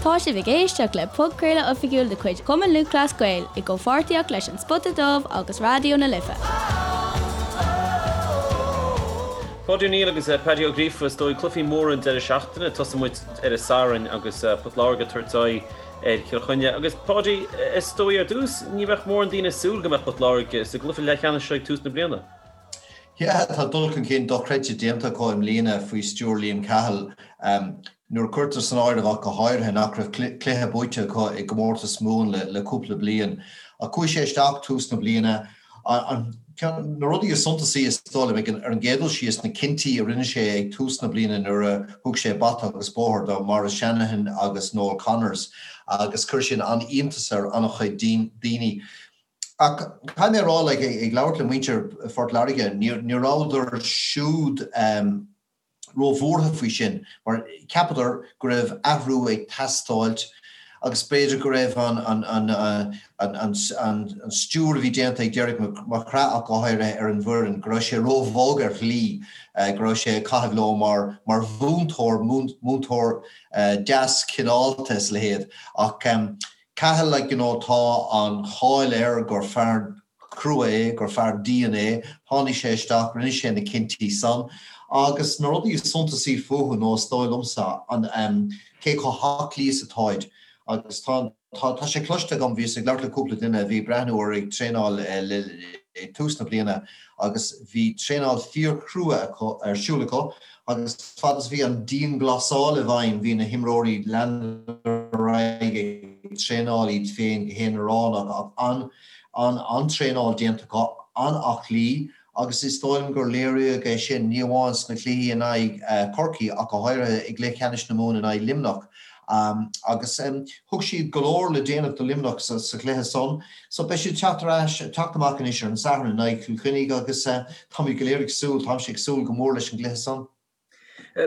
Tá sibh ag éisteacht le podchraoladh oifigiúil de chuid Chumann Lúthchleas Gael i gcomhpháirtíocht leis An Spota Dubh agus Raidió na Life. Páidí Ó Neill agus Paddy Ó Gríofa, is dóigh, cluichí móra an deireadh seachtaine. Tosóidh muid ar an Satharn agus Port Láirge ag tabhairt aghaidh ar Chill Chainnigh. Agus Páidí, is dóigh ar dtús, ní bheadh mórán daoine ag súil go mbeadh Port Láirge sa gcluiche leathcheannais seo ag tús na bliana. Yeah, tá dul chun cinn dochreidte déanta acu i mbliana faoi stiúir Liam Cahill. Nuair a cuirtear san áireamh ach go háirithe nach raibh cluiche buaite acu i gcomórtas Mumhan le cúpla bliain. Ach chuaigh sé isteach tús na bliana. Ceann na rudaí is suntasaí is dóigh liom ar an gcéad dul síos na cinntí a rinne sé ag tús na bliana nuair a thug sé bata agus bóthar do Maurice Shanahan agus Noel Connors agus chuir sin an-iontas ar an-chuid daoine. Ach caithfidh mé a rá, like, ag labhairt le muintir Phort Láirge, ní rabhadar siúd róbhuartha faoi sin mar cheapadar go raibh athrú ag teastáilt agus b'fhéidir go raibh an stiúir a bhí déanta ag Derek McGrath ach go háirithe ar an bhfoireann, go raibh sé róbhog ar shlí, go raibh sé ag caitheamh leo mar mhúinteoir, múinteoir deas cineálta is a leithéid. Ach Cahill, like, you know, tá an cháil air gur fear crua é, gur fear dian é. Tháinig sé isteach, rinne sé na cinntí san. Agus na rudaí is suntasaí fúthu nó is dóigh liomsa, an, cé chomh haclaí is atáid. Agus tá, tá, tá sé cloiste agam, bhíos ag labhairt le cúpla duine a bhí ag breathnú orthu ag traenáil le, ag tús na bliana agus bhí traenáil fíorchrua acu, ar siúl acu Agus fad is a bhí an dianghlasáil i bhfeidhm bhí na himreoirí leanadar ar aghaidh ag traenáil iad féin go haonaránach ach an-traenáil déanta acu, an-aclaí agus is dóigh liom gur léiríodh é sin ní amháin sna cluichí in aghaidh Chorcaí ach go háirithe i gcluiche ceannais na Mumhan in aghaidh Luimneach. Agus thug siad go leor le déanamh do Luimneach sa chluiche san. So beidh siad teacht ar ais, teacht amach anois ar an Satharn in aghaidh Chill Chainnigh agus táimid go léir ag súil, táimse ag súil go mór leis an gcluiche san.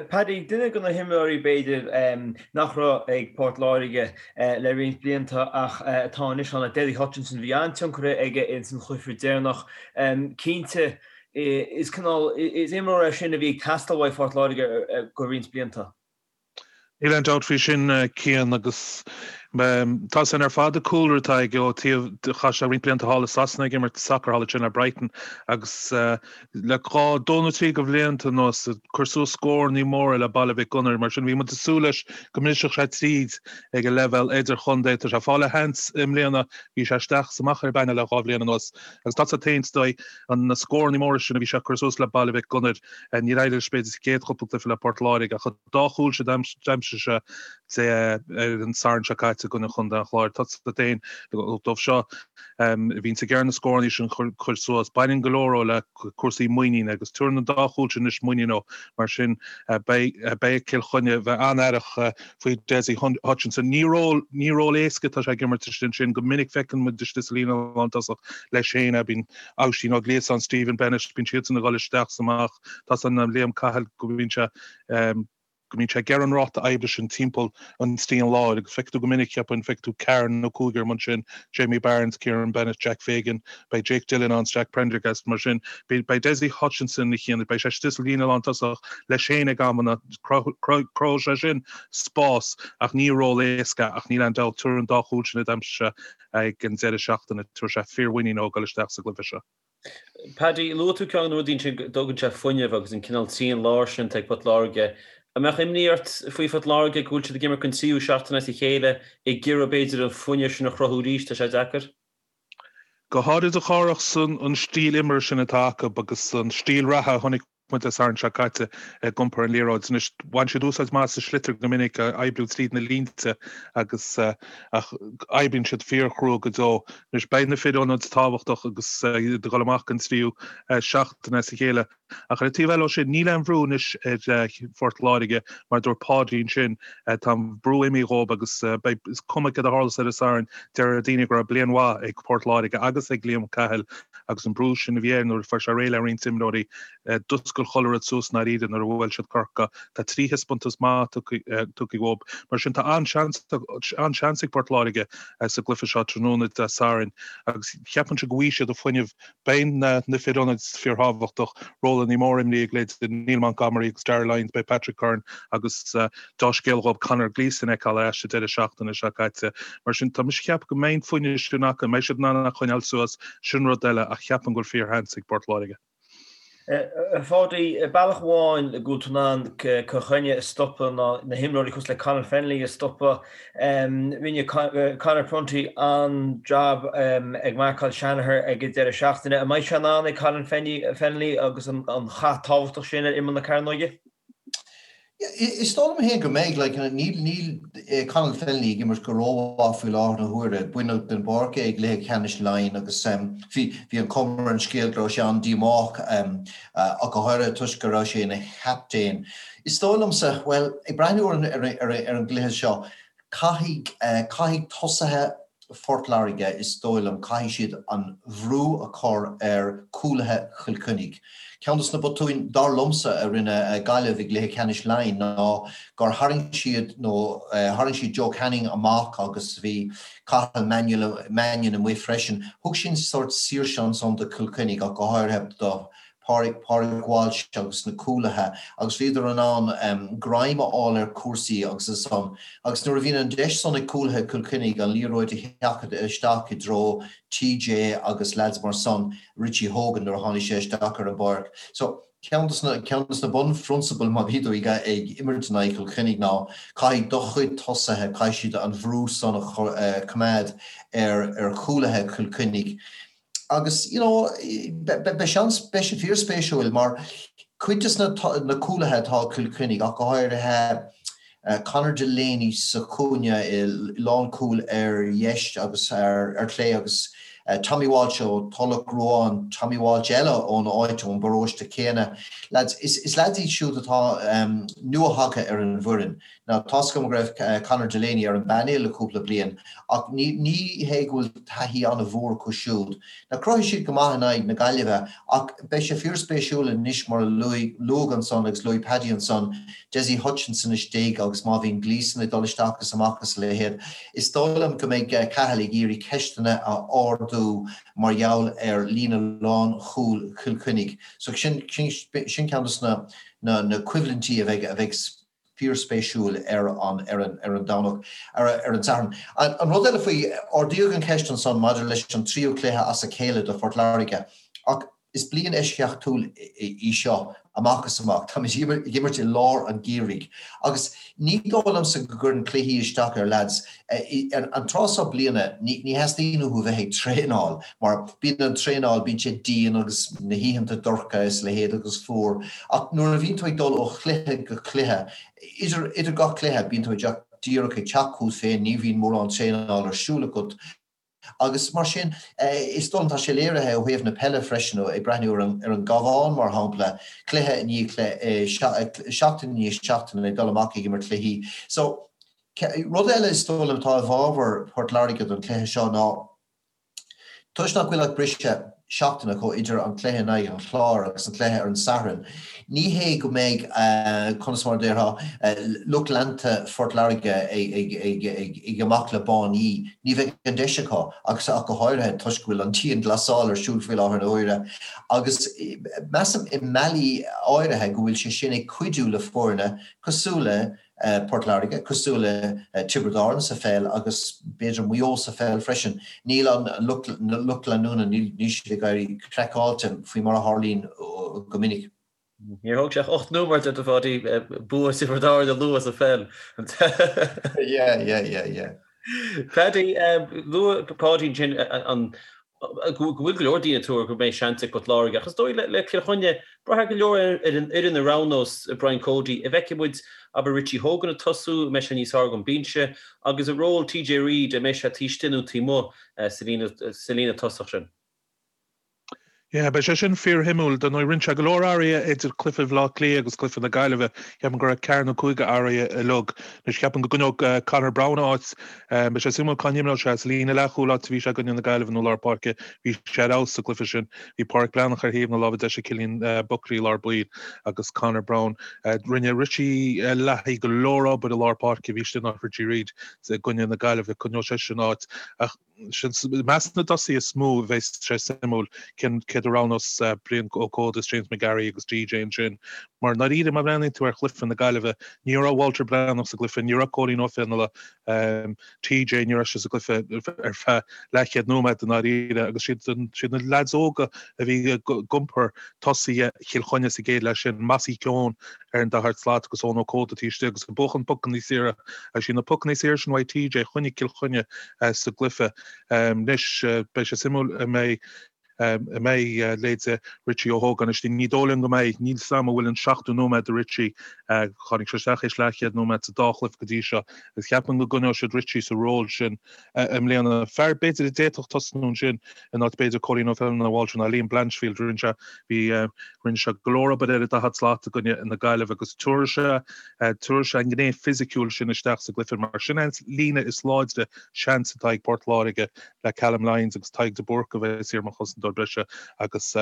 Paddy, duine de na himreoirí b'fhéidir nach raibh ag Port Láirge le roinnt blianta ach atá anois ann, Dessie Hutchinson, bhí an-tionchar aige ins an chluiche deireanach. Cinnte, is cineál, is imreoir é sin a bhí ag teastáil uaidh Phort Láirge go roinnt blianta. Níl aon dabht faoi sin, Cian, agus tá san ar fad an cúlra atá aige ó taobh, chaith sé roinnt blianta thall i Sasana ag imirt sacair thall ansin le Brighton agus le dhá, dó nó trí de bhlianta anuas ag cur suas scórannaí móra le Baile Mhic Gonair. Mar sin bhí muid ag súil leis go mbrisfeadh sé tríd ag an leibhéal idirchontae. Tá sé ag fáil a sheans i mbliana, bhí sé isteach is amach ar an bpainéal le dhá bhliain anuas agus tá sé féin is dóigh na scórannaí móra sin a bhí sé ag cur suas le Baile Mhic Gonair, níor éirigh leis b'fhéidir sa chéad chúpla cluiche le Port Láirge ach an dá chúl sin a d'aimsigh sé ar an Satharn seo caite i gcoinne Chontae an Chláir. Tá a fhios agat féin dóibh seo a bhíonns ag iarraidh na scórannaí sin a chur suas. Baineann go leor le cúrsaí muiníne agus tabharann an dá chúl sin anois muinín dó. Mar sin beidh beidh Cill Chainnigh bheith an-aireach faoi Dessie Hutchinson. Ní ról ní ról éasca atá sé ag imirt istigh ansin. Go minic feiceann muid istigh sa líne lántosach leis féin é. Bíonn Oisín Ó Gliasáin, Stephen Bennett, bíonn siadsan ag dul isteach is amach. Tá a fhios ag Liam Cahill go mbíonn sé go mbíonn sé ag iarraidh an ráta oibre sin timpeall an trian láir agus feicfidh tú go minic, cheapfainn, feicfidh tú ceathrar nó cúigear amuigh ansin, Jamie Barnes, Kieran Bennett, Jack Fagan, beidh Jake Dillon ann, Jack Prendergast, mar sin beidh Dessie Hutchinson a Chian, beidh sé istigh sa líne lántosach leis féin ag amanna, cruthóidh sé sin spás ach ní ról éasca ach níl aon dabht, tabharfaidh an dá chúl sin a d'aimsigh sé ag an deireadh seachtaine, tabharfaidh sé fíormhuinín dó ag dul isteach sa gcluiche seo. Paddy, luaigh tú ceann de na rudaí ansin go dtugann sé fuinneamh agus an cineál trian láir sin atá ag Port Láirge. An mbeadh imní ort faoi Phort Láirge go bhfuil siad ag imirt don tríú seachtain as a chéile ag iarraidh b'fhéidir an fuinneamh sin a chruthú arís, tá sé deacair? Go háirid a Chárthach san an stíl imeartha sin atá acu agus an stíl reatha a chonaic muid Dé Sathairn seo caite ag iompar an liathróid. Anois, bhain siad úsáid maith as an sliotar go minic, oibriú tríd na línte agus ach oibríonn siad fíorchrua go deo. Anois, beidh na fir ionaid tábhachtach agus iad ag dul amach don tríú seachtain as a chéile. Ach ar an taobh eile ó sin, níl aon bhrú anois ar Phort Láirge, mar a dúirt Páidí ansin, tá an brú imithe dhóibh agus beidh, is cuma céard a tharlós ar an Satharn, deir daoine go raibh bliain mhaith ag Port Láirge agus ag Liam Cahill agus an brú sin a bhí air nuair a fuair sé réidh le roinnt imreoirí. D'oscail chuile rud suas i ndáiríre nuair a bhuail siad Corcaigh. Tá 3 thaispeántas maith tugtha uathu. Mar sin tá an-seans an-seans ag Port Láirge sa gcluiche seo tráthnóna Dé Sathairn agus cheapfainnse go bhfaighidh siad an fuinneamh Beidh na fir ionaid fíorthábhachtach, rólanna móra imrithe ag leithéidí Neil Montgomery agus Darragh Lyons, beidh Patrick Curran agus dea-scéal dhóibh Conor Gleeson a fheiceáil ar ais an deireadh seachtaine seo caite. Mar sin, tá mise ag ceapadh go mbeidh an fuinneamh sin acu, an mbeidh siad in ann é a choinneáil suas, sin rud eile ach cheapfainn go bhfuil fíorsheans ag Port Láirge. A Pháidí, bealach amháin go bhfuil tú in ann Cill Chainnigh a stopadh ná na himreoirí cosúil le Conor Fennelly a stopadh. Rinne Conor Prunty an-jab ag marcáil Shanagher ag an deireadh seachtaine. An mbeidh sé in ann ag Conor Fennelly agus an chath tábhachtach sin ar imeall na cearnóige? Is dóigh liom féin go mbeidh. Like, níl, níl Conal Fennelly ag imirt go rómhaith faoi láthair na huaire. Baineadh den bpáirc é i gcluiche ceannais Laighean agus bhí, bhí an chuma ar an scéal go raibh sé an-díomách, ach go háirithe toisc go raibh sé ina chaptaen. Is dóigh liomsa, bhuel, ag breathnú ar an, ar an, ar an gcluiche seo, Caithfidh, caithfidh tosaithe Phort Láirge, is dóigh liom, caithfidh siad an bhrú a chur ar chúlaithe Chill Chainnigh. Ceann de na botúin, dar liomsa, a rinne Gaillimh i gcluiche ceannais Laighean ná gur tharraing siad, nó tharraing siad Joe Canning amach agus bhí Cathal Mannion amuigh freisin. Thug sin sórt saoirse ansan do Chill Chainnigh ach go háirithe do Pádraig Walsh agus na cúlaithe agus bhíodar in ann greim a fháil ar chúrsaí agus ansan agus nuair a bhíonn an deis san ag cúlaithe Chill Chainnigh an liathróid a sheachadadh isteach i dtreo TJ agus leaids mar san, Richie Hogan nuair a tháinig sé isteach ar an bpáirc. So ceann de na ceann de na bunphrionsabail má bhí tú ag ag imirt in aghaidh Chill Chainnigh ná caithfidh do chuid tosaithe, caithfidh siad an bhrú san a choimeád ar ar chúlaithe Chill Chainnigh. Agus, you know, beidh seans, beidh sé fíorspéisiúil mar cuid de na cúlaithe atá ag Cill Chainnigh, ach go háirithe Conor Delaney sa chúinne i lánchúl ar dheis agus ar chlé agus Tommy Walsh ó Tulach Ruáin, Tommy Walsh eile ón áit, ón bparóiste céanna. Lads, is lads iad siúd atá nua-thagtha ar an bhfoireann. Now, tá's agam go raibh Conor Delaney ar an bpainéal le cúpla bliain, ach ní hé go bhfuil taithí an-mhór acu siúd. Now, chruthaigh siad go maith in aghaidh na Gaillimhe, ach beidh sé fíorspéisiúil anois mar a luadh ansan agus luaigh Paddy ansan, Dessie Hutchinson istigh agus má bhíonn Gleeson ag dul isteach is amach is a leithéid, is dóigh liom go mbeidh Cahill ag iarraidh ceisteanna a ardú mar gheall ar líne lánchúil Chill Chainnigh. So sin ceann de na coimhlintí a bheidh fíorspéisiúil ar an ar an ar an Domhnach, ar ar an Satharn. An rud eile faoi, ardaíodh an cheist ansan maidir leis an tríú cluiche as a chéile do Phort Láirge ach is bliain eisceachtúil í seo amach is amach. Táimid ag imirt i lár an gheimhridh agus ní dóigh liomsa go gcuireann cluichí isteach ar leaids. An tráth seo bliana ní theastaíonn uathu bheith ag traenáil mar bíonn an traenáil, bíonn sé dian agus na hoícheanta dorcha is a leithéid agus fuar ach nuair a bhíonn tú ag dul ó chluiche go cluiche, idir, idir gach cluiche, bíonn tú ag díreach ag teacht chugat féin, ní bhíonn mórán traenáil ar siúl agat agus mar sin is dóigh liom, tá sé léirithe ó thaobh na peile freisin, ag breathnú ar an, ar an gCabhán mar shampla, cluiche i ndiaidh cluiche, seachtain i ndiaidh seachtaine ag dul amach ag imirt cluichí. So, rud eile is dóigh liom atá i bhfabhar Port Láirge don chluiche seo ná, Toisc nach bhfuil ach briseadh seachtaine acu idir an cluiche in aghaidh an Chláir agus an cluiche ar an Satharn, ní hé go mbeidh, conas mar a déarfá, lucht leanta Phort Láirge ag amach le báiní. Ní bheidh an deis acu, agus ach go háirithe toisc go bhfuil an dianghlasáil ar siúl faoi láthair na huaire. Agus measaim i mbealaí áirithe go bhfuil sé sin ag cuidiú le foirne cosúil le Port Láirge, cosúil le Tiobraid Árann sa pheil agus b'fhéidir Maigh Eo sa pheil freisin. Níl an lucht leanúna, níl siad ag éirí craiceáilte faoi mar a tharlaíonn go minic. Níor thóg sé ach 8 nóiméad ort, a Pháidí, bua Thiobraid Árann a lua sa pheil. Yeah, yeah, yeah, yeah. Paddy, luaigh Páidí ansin an go bhfuil go leor daoine ag tuar go mbeidh seans ag Port Láirge ach is dóigh le Cill Chainnigh, braithfidh go leor ar an fhoireann a roghnós Brian Cody. An bhfeicfidh muid, abair, Richie Hogan ag tosú, an mbeidh sé níos fearr ón mbinse, agus a ról TJ Reid, an mbeidh sé taobh istigh nó taobh amuigh sa líne tosach sin? Yeah, beidh sé sin fíorshuimiúil. Dar ndóigh, rinne sé go leor athruithe idir cluiche Bhaile Átha Cliath agus cluiche na Gaillimhe. Ceapaim go raibh ceathair nó cúig athruithe uilig. Anois ceapaim go gcoinneoidh Conor Browne a áit. Beidh sé suimiúil cá n-imreoidh sé, sa líne leathchúil áit a bhí sé i gcoinne na Gaillimhe nó lár páirce. Bhí sé ar fheabhas sa gcluiche sin. Bhí Pádraic Breathnach ar thaobh na láimhe deise, Cillian Buckley i lár baill agus Conor Browne. Rinne Richie Leahy go leor obair i lár páirce, bhí sé in áit Richie Reid i gcoinne na Gaillimhe. Coinneoidh seisean a áit. Ach Sin i measc na dtosaithe is mó a bheas sé suimiúil cén céard a roghnós Brian Ó Códa is James McGarry agus TJ ansin. Mar ndáiríre má bhreathnaíonn tú ar chluiche na Gaillimhe, ní raibh Walter Breathnach sa gcluiche, ní raibh Cóilín Ó Fionnaile, TJ, ní raibh sé sa gcluiche ar feadh leathchéad nóiméad i ndáiríre agus siad siad na leaids óga a bhí ag iompar tosaithe Chill Chainnigh sa gcéad leath sin, Mossy Keoghan ar an daichead slat agus Eoin Ó Códa taobh istigh agus ag buachan pocanna saora agus siad na pocanna saora sin uaidh TJ a choinnigh Cill Chainnigh sa gcluiche. Anois beidh sé suimiúil an mbeidh an mbeidh leithéide Richie Hogan istigh. Ní dóigh liom go mbeidh. Níl 's a'm an bhfuil an seachtó nóiméad do Richie. Tháinig sé isteach théis leathchéad nóiméad sa dá chluiche go dtí seo agus ceapaim go gcoinneoidh siad Richie sa ról sin i mbliana. Fear b'fhéidir a d'fhéadfadh tosnú ansin in áit b'fhéidir Cóilín Ó Feileanna Walter ná Liam Blanchfield. Rinne sé bhí rinne sé go leor obair ar an daichead slat i gcoinne na Gaillimhe agus tabharfaidh sé tabharfaidh sé an ghné fisiciúil sin isteach sa gcluiche mar sin an líne is láidre seans atá ag Port Láirge le Callum Lyons agus Tadhg de Búrca a bheas thiar mar chosantóir breise agus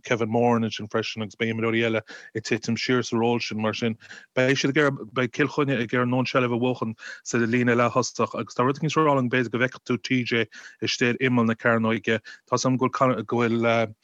Kevin Moran ansin freisin agus beidh imreoirí eile ag titim siar sa ról sin mar sin beidh siad ag iarraidh beidh Cill Chainnigh ag iarraidh a ndóthain seilbh a bhuachan sa líne leath-thosach agus tá rud éicint ag rá liom b'fhéidir go bhfeicfidh tú TJ istigh ar imeall na cearnóige. Tá 's a'm go bhfuil go bhfuil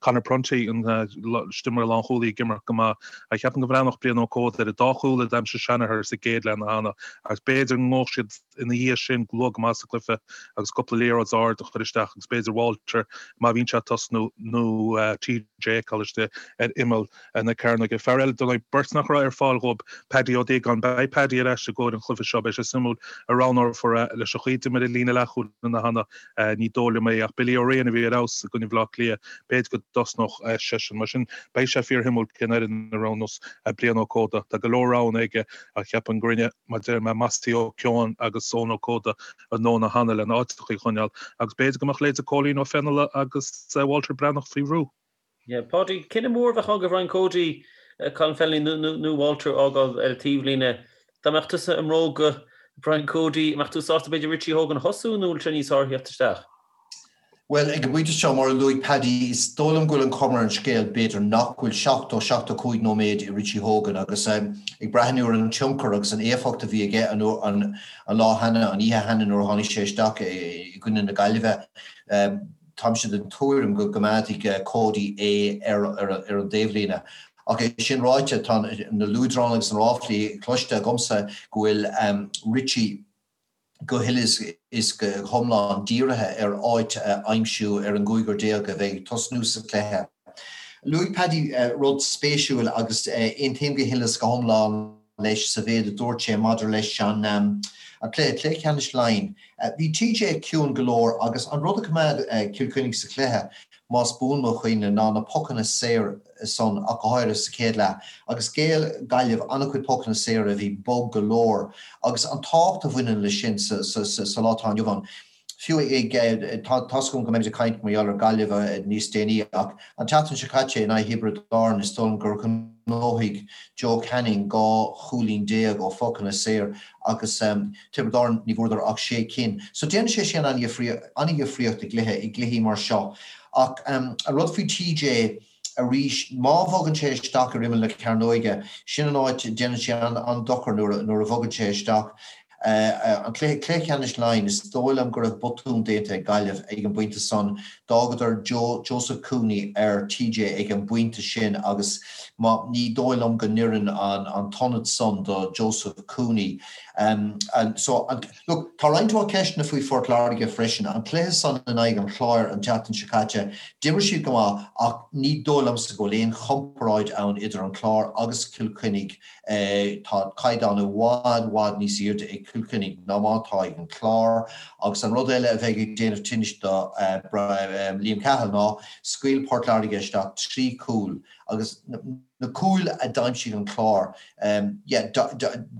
Conor Prunty an istigh mar lánchúlaí ag imirt go maith. Ach cheapfainn go mbreathnódh Brian Ó Códa ar an dá chúl a d'aimsigh Shanagher sa gcéad leath cheana agus b'fhéidir go ngabhfadh siad ina dhiaidh sin luath go maith sa gcluiche agus cúpla liathróid ard a chur isteach agus b'fhéidir Walter má bhíonn sé ag tosnú nó TJ a fheiceáil istigh ar imeall na cearnóige. Fear eile, dar ndóigh, beirt nach raibh ar fáil dhóibh, Paddy Ó Déagáin. Beidh Paddy ar ais i gcomhair an chluiche seo. Beidh sé suimiúil an roghnófar é leis an chaoi a d'imir an líne leathchúil cheana. Ní dóigh liom é ach Billy Ó Riain a bhí ar fheabhas i gcoinne Bhaile Átha Cliath, b'fhéidir go dtosnódh seisean. Mar sin, beidh sé fíorshuimiúil cén fhoireann a roghnós Brian Ó Códa. Tá go leor roghanna aige ach cheapfainn go rinne, mar a deir mé, Mossy Ó Keoghan agus Eoin Ó Códa a ndóthain cheana lena áiteacha a choinneáil agus b'fhéidir go mbeadh leithéide Cóilín Ó Fionnaile agus Walter Breathnach faoi bhrú. Yeah, Páidí, cinneadh mór a bheadh ann do Bhrian Cody, Colin Fennelly nó Walter a fhágáil ar an taobhlíne. Dá mbeadh tusa i mbróga Brian Cody, an mbeadh tú sásta b'fhéidir Richie Hogan a thosú nó bhfuil sé níos fearr a theacht isteach? Bhuel, ag an bpointe seo, mar a luaigh Paddy, is dóigh liom go bhfuil an chuma ar an scéal, b'fhéidir, nach bhfuil 70, 75 nóiméad i Richie Hogan agus ag breathnú ar an tionchar agus an éifeacht a bhí aige an lá cheana, an oíche cheana nuair a tháinig sé isteach i gcoinne na Gaillimhe, Táimse den tuairim go gcoimeádfaidh Cody é ar an dtaobhlíne. Ach é sin ráite, tá na luaidreáin agus na ráflaí cloiste agamsa go bhfuil Richie go huile is go hiomlán dírithe ar áit a aimsiú ar an gcúigear déag a bheidh ag tosnú sa chluiche. Luaigh Paddy rud spéisiúil agus aontaím go huile is go hiomlán leis sa mhéid a dúirt sé maidir leis an cluiche, cluiche ceannais Laighean. Bhí TJ ciúin go leor agus an rud a choimeád Cill Chainnigh sa chluiche, más buan mo chuimhne, ná na pocanna saora san ach go háirithe sa chéad leath. Agus ghéill Gaillimh an-chuid pocanna saora a bhí bog go leor agus an tábhacht a bhaineann leis sin sa lá atá inniu ann. Fiú ag, tá's agam go mbeimid ag caint mar gheall ar Gaillimh níos déanaí ach an tseachtain seo caite in aghaidh Thiobraid Árann is dóigh liom gur ghnóthaigh Joe Canning 12 chúilín ó phocanna saor agus Tiobraid Árann ní bhfuaireadar ach sé cinn. So déanann sé sin an-dhifríocht i gcluiche, i gcluichí mar seo. Ach an rud faoi TJ arís, má bhogann sé isteach ar imeall na cearnóige, sin an áit, déanann sé an-dochar nuair a bhogann sé isteach. An cluiche, cluiche ceannais Laighean, is dóigh liom go raibh botún déanta ag Gaillimh ag an bpointe san. D'fhágadar Joe, Joseph Cooney ar TJ ag an bpointe sin agus má, ní dóigh liom go n-oireann an t-ionad san do Joseph Cooney. So, an, Look, tá roinnt mhaith ceisteanna faoi Phort Láirge freisin. An cluiche san in aghaidh an Chláir an tseachtain seo caite, d'imir siad go maith ach ní dóigh liomsa go bhfuil aon chomparáid ann idir an Clár agus Cill Chainnigh. Tá caighdeán i bhfad, bhfad níos airde ag Cill Chainnigh ná mar atá ag an Clár. Agus an rud eile a bheidh ag déanamh tinnis do Liam Cahill ná scaoil Port Láirge isteach 3 chúl agus na cúil a d'aimsigh an Clár, yeah,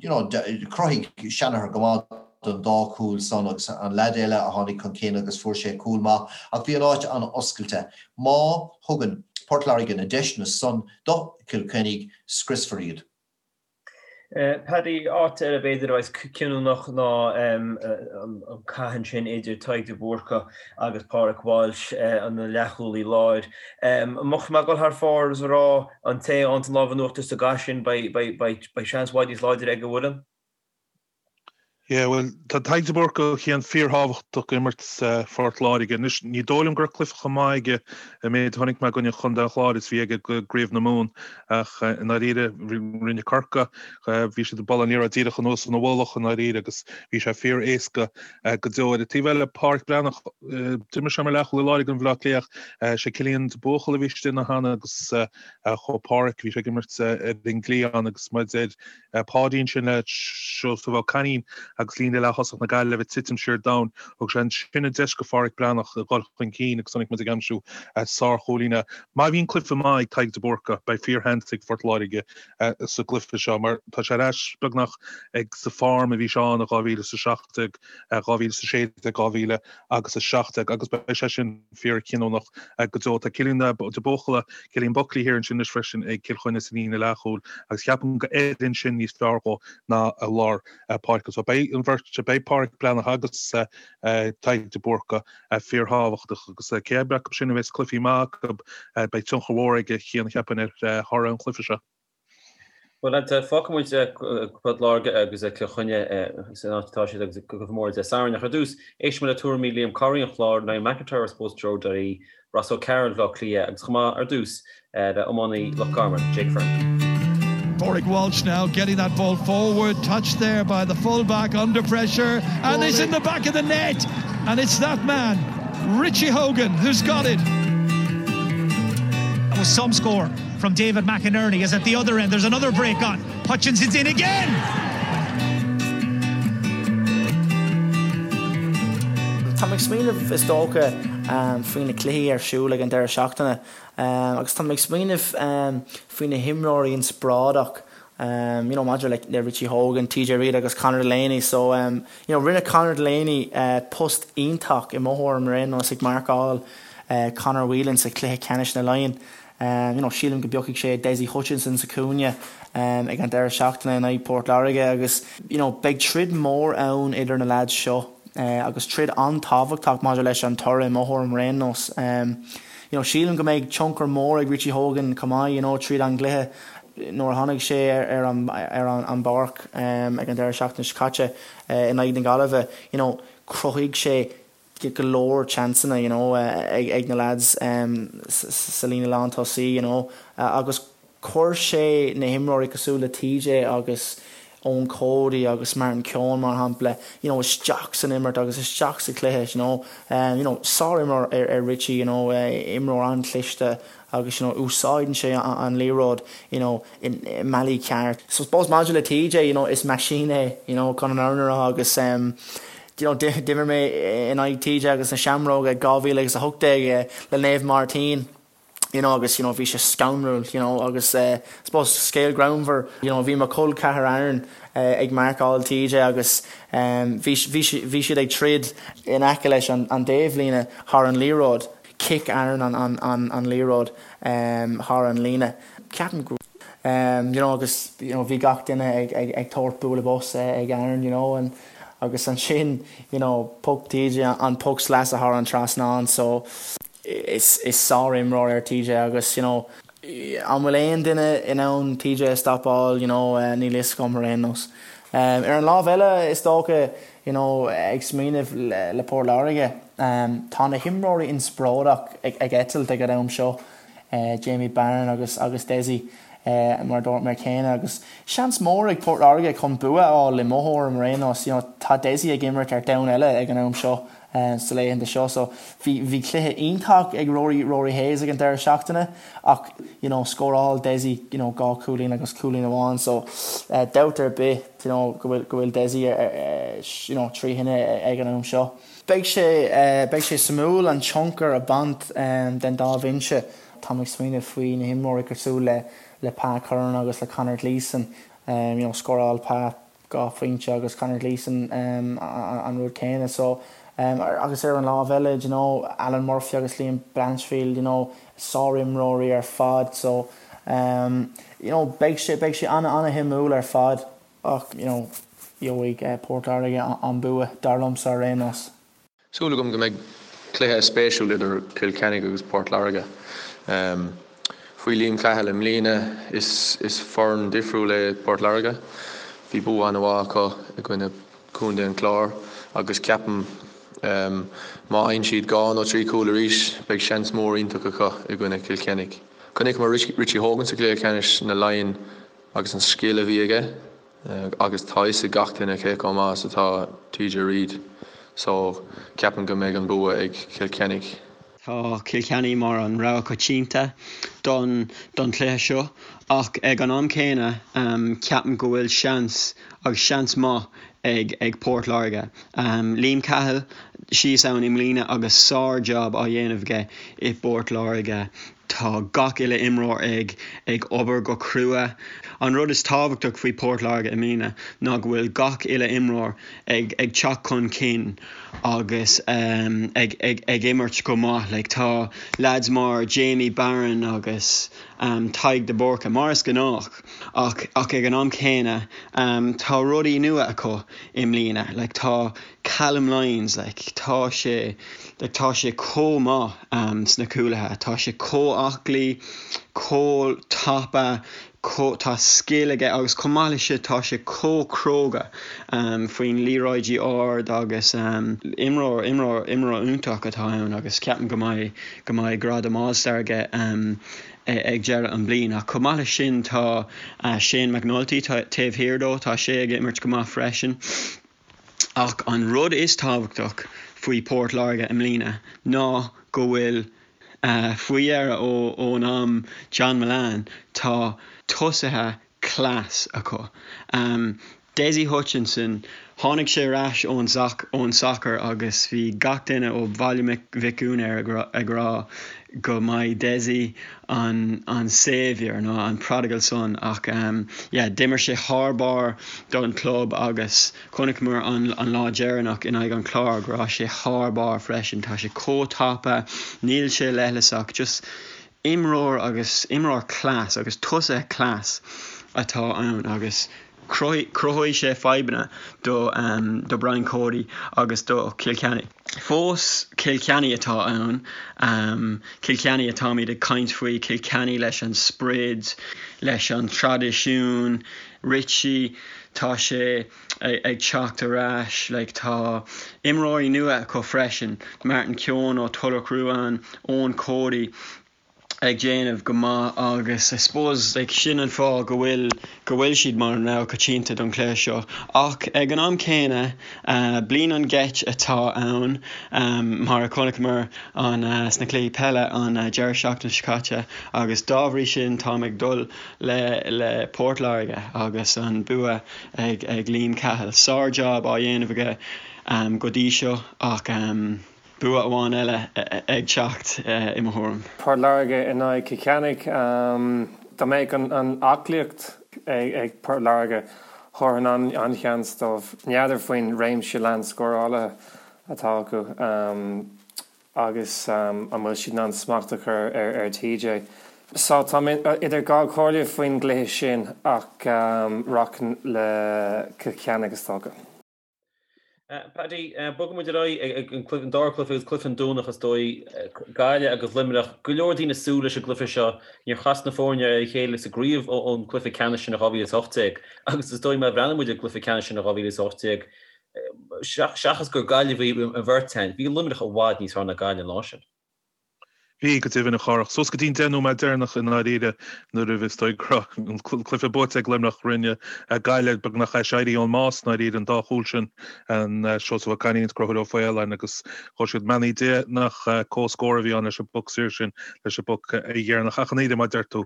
you know, chruthaigh Shanagher go maith. don dá chúl san agus an leaid eile a tháinig chun cinn agus fuair sé cúl maith ach bhí an áit an-oscailte. Má thugann Port Láirge na deiseanna san do Chill Chainnigh, scriosfar iad. Paddy, áit eile b'fhéidir a bheas cinniúnach ná an cath ansin idir Tadhg de Búrca agus Pádraic Walsh, an leathchúlaí láir. An mbeadh mé ag dul thar fóir is a rá an té a fhaigheann an lámh in uachtar sa gcath sin beidh seans i bhfad níos láidre ag an bhfoireann? Yeah, bhuel, tá Tadhg de Búrca Cian fíorthábhachtach imirt Phort Láirge. Anois, ní dóigh liom go raibh cluiche chomh maith aige an méid a chonaic mé i gcoinne Chontae an Chláir is bhí aige i gCraobh na Mumhan ach i ndáiríre rinne Corcaigh, bhí siad ag bualadh an liathróid díreach anuas ina mhullach i ndáiríre agus bhí sé fíor-éasca go deo. Ar an taobh eile, Páraic Breathnach, d'imir sé mar leathchúlaí láir i gcoinne Bhaile Átha Cliath ach sé Cillian de Buachalla a bhí istigh ina theannta agus chuaigh Páraic, bhí sé ag imirt ar an gcliathán agus mar a deir Páidí ansin le Seosamh Ó Cainín agus líne leath-thosach na Gaillimhe ag titim siar domhain. Thug sé ansin an deis go Pháraic Breathnach a dhul chun cinn agus chonaic muid ag aimsiú sár-chúilín. Má bhíonn cluiche maith ag Tadhg de Búrca, beidh fíorsheans ag Phort Láirge sa gcluiche seo mar tá sé ar ais beagnach ag sa form a bhí sé ann i 2017, 2016, 2017 agus beidh sé sin fíorchinniúnach go deo. Tá Cillian de Buachalla, Cillian Buckley thiar ansin anois freisin ag Cill Chainnigh sa líne leathchúil agus ceapaim go oireann sin níos fearr dhó ná i lár páirce. So beidh an bheirt, beidh Páraic Breathnach agus Tadhg de Búrca fíorthábhachtach agus cé acu sin a bheas cluichí maith acu beidh tionchar mhór aige Cian cheapfainn ar thoradh an chluiche seo. Bhuel, fágfaidh muid Port Láirge agus Cill Chainnigh san áit atá siad agus cluiche mór Dé Sathairn. Ach ar dtús, éistfidh muid le tuairimí Liam Corry an Chláir, Niall McIntyre ar Sportsjoe.ie, Ross O'Carroll Bhaile Átha Cliath agus chomh maith ar dtús le iománaí Loch Garman, Jake Fearn. Pádraig Walsh now getting that ball forward, touched there by the full-back under pressure and it's in the back of the net and it's that man, Richie Hogan, who's got it. That was some score from David McInerney is at the other end. There's another break on. Hutchinson's in again. Tá mé ag smaoineamh is dócha faoi na cluichí ar siúl ag an deireadh seachtaine agus tá mé ag smaoineamh faoi na himreoirí inspioráideach you know maidir le Richie Hogan, TJ Reid agus Conor Delaney so you know rinne Conor Delaney post iontach i mo thuairim ar aon nós ag marcáil Conor Whelan sa chluiche ceannais na Laighean. You know, sílim go bpiocfaidh sé Dessie Hutchinson sa chúinne ag an deireadh seachtaine in aghaidh Port Láirge agus you know, beidh troid mór ann idir na leaids seo agus troid an-tábhachtach maidir leis an toradh i mo thuairim ar aon nós. You know, sílim go mbeidh tionchar mór ag Richie Hogan chomh maith you know, tríd an gcluiche nuair a tháinig sé ar an ar an bpáirc ag an deireadh seachtaine seo caite in aghaidh na Gaillimhe, you know, chruthaigh sé go leor seansanna you know ag na lads sa líne lántosaí you know agus chuir sé na himreoirí cosúil le TJ agus Eoin Cody agus Martin Keoghan mar shampla you know isteach san imirt agus isteach sa chluiche you know. You know sár-imreoir é Richie you know imreoir an-chliste agus you know úsáideann sé an liathróid you know i mbealaí ceart. So suppose maidir le TJ you know is machine é you know chun an fhírinne a rá agus em you know d'imir mé in aghaidh TJ agus na Seamróga 2018 le Naomh Máirtín you know agus you know bhí sé scanrúil you know agus eh suppose scéal greannmhar you know bhí mo chol ceathar Aaron eh ag marcáil TJ agus em bhí bhí bhí siad ag troid in aice leis an an dtaobhlíne thar an liathróid Chic Aaron an liathróid thar an líne. Ceapaim go you know agus you know bhí gach duine ag ag ag tabhairt bualadh bos ag Aaron you know and agus ansin you know pioc TJ an poc sleasa thar an trasnán so is is sár-imreoir é TJ agus you know an bhfuil aon duine in ann TJ a stopáil you know níl fhios agam ar aon nós. Ar an lámh eile is dócha you know ag smaoineamh le Port Láirge, tá na himreoirí inspioráideach ag eitilt ag an am seo, Jamie Barron agus agus Dessie mar a dúirt mé céanna agus seans mór ag Port Láirge chun bua a fháil i mo thuairim ar aon nós. You know tá Dessie ag imirt ar domhan eile ag an am seo sa laethanta seo so bhí bhí cluiche iontach ag Rory Rory Hayes ag an deireadh seachtaine ach you know scóráil Dessie you know 2 chúilín agus cúilín amháin so dabht ar bith you know go bhfuil go bhfuil Dessie you know trí thine ag an am seo. Beidh sé beidh sé suimiúil an tionchar a bhaint den dá bhinse. Táim ag smaoineamh faoi na himreoirí cosúil le le Pa Curran agus le Conor Gleeson you know scóráil Pa. 2 phointe agus Conor Gleeson an rud céanna so agus ar an lámh eile do you know Alan Murphy agus Liam Blanchfield you know sárimreoirí ar fad so you know beidh sé beidh sé ana ana shuimiúil ar fad ach you know gheobhaidh Port Láirge an bua dar liomsa ar aon nós. Súil agam go mbeidh cluiche spéisiúil idir Cill Chainnigh agus Port Láirge. Faoi Liam Cahill i mbliana, is foireann difriúil é Port Láirge. Bhí bua an-mhaith acu i gcoinne Contae an Chláir agus ceapaim má fhaigheann siad dhá nó trí chúl arís, beidh seans mór iontach acu i gcoinne Chill Chainnigh. Chonaiceamar Richie Hogan sa chluiche ceannais na Laighean agus an scil a bhí aige. Agus tá fhios ag gach duine cé chomh maith is atá TJ Reid so ceapaim go mbeidh an bua ag Cill Chainnigh. Tá Cill Chainnigh mar an rogha coitianta don don chluiche seo ach ag an am céanna ceapaim go bhfuil seans agus seans maith ag ag Port Láirge. Liam Cahill síos ann i mbliana agus sár job á dhéanamh aige i bPort Láirge. Tá gach uile imreoir ag ag obair go crua. An rud is tábhachtach faoi Port Láirge i mbliana ná go bhfuil gach uile imreoir ag ag teacht chun cinn agus ag ag ag imirt go maith. Like tá lads mar Jamie Barron agus Tadhg de Búrca mar is gnách ach ach ag an am céanna tá rudaí nua acu i mbliana. Like tá Callum Lyons, like, tá sé, like, tá sé chomh maith sna cúlaithe, tá sé chomh aclaí, chomh tapa, chomh, tá scil aige agus chomh maith leis sin tá sé chomh cróga faoin liathróidí ard agus imreoir, imreoir, imreoir iontach atá ann agus ceapaim go mbeidh, go mbeidh gradam All Star aige ag deireadh an bliain. Ach chomh maith leis sin tá Shane McNulty taobh thiar dó, tá sé ag imirt go maith freisin. Ach an rud is tábhachtach faoi Port Láirge i mbliana ná go bhfuil, faoi dheireadh ón am John Mullane, tá tosaithe class acu. Dessie Hutchinson, tháinig sé ar ais ón ón sacar agus bhí gach duine ó Bhaile Mhic Gonair ag rá go mbeidh Dessie an an saviour nó an prodigal son ach yeah d'imir sé thar barr don club agus chonaiceamar an an lá deireanach in aghaidh an Chláir go raibh sé thar barr freisin. Tá sé chomh tapa, níl sé leithleasach, just imreoir agus imreoir class agus tosaithe class atá ann agus cruthóidh sé fadhbanna do do Brian Cody agus do Chill Chainnigh. Fós Cill Chainnigh atá ann, Cill Chainnigh atáimid ag caint faoi, Cill Chainnigh leis an sprid, leis an traidisiún, Richie, tá sé ag teacht ar ais, like tá imreoirí nua acu freisin, Martin Keoghan ó Tulach Ruadh, Eoin Cody, ag déanamh go maith agus I suppose like sin an fáth go bhfuil go bhfuil siad mar an rogha coitianta don chluiche seo ach ag an am céanna bliain an gheit atá ann mar a chonaiceamar an sna cluichí peile an deireadh seachtaine seo caite agus dá bhrí sin táim ag dul le le Port Láirge agus an bua ag ag Liam Cahill. Sár job á dhéanamh aige go dtí seo ach Bua amháin eile ag teacht, i mo thuairim. Port Láirge in aghaidh Cill Chainnigh. Dá mbeadh an aclaíocht ag Port Láirge, thabharfainn an-sheans dóibh. N'fheadar faoin réimse leathan scórálaithe atá acu agus an bhfuil siad in ann smacht a chur ar TJ. So tá mé idir dhá chomhairle faoin gcluiche sin ach rachainn le Cill Chainnigh is dócha. Paddy, bogfaidh muid ar aghaidh ag an dara cluiche agus cluiche an Domhnach is dóigh, Gaillimh agus Luimneach. Go leor daoine ag súil leis an gcluiche seo. Níor chas na foirne ar a chéile sa gcraobh ón gcluiche ceannais sin in 2018 agus is dóigh má bhreathnaíonn muid ar an gcluiche ceannais sin in 2018, seachas gur Gaillimh a bhí an bheirt againn, bhí Luimneach i bhfad níos fearr ná Gaillimh an lá sin. Bhí, go deimhin, a Chárthach. Suas go dtí an 10 nóiméad deireanach i ndáiríre nuair a bhí is dóigh go raibh an cluiche buaite ag Luimneach, rinne Gaillimh beagnach aiséirí ón mbás i ndáiríre, an dá chúl sin, an Seosamh Ó Cainín is Conchúr Ó Faoláin agus chuir siad beannaí Dé nach comhscór a bhí ann leis an bpoc saor sin, leis an bpoc dheireanach. Ach i ndáiríre, mar a deir tú.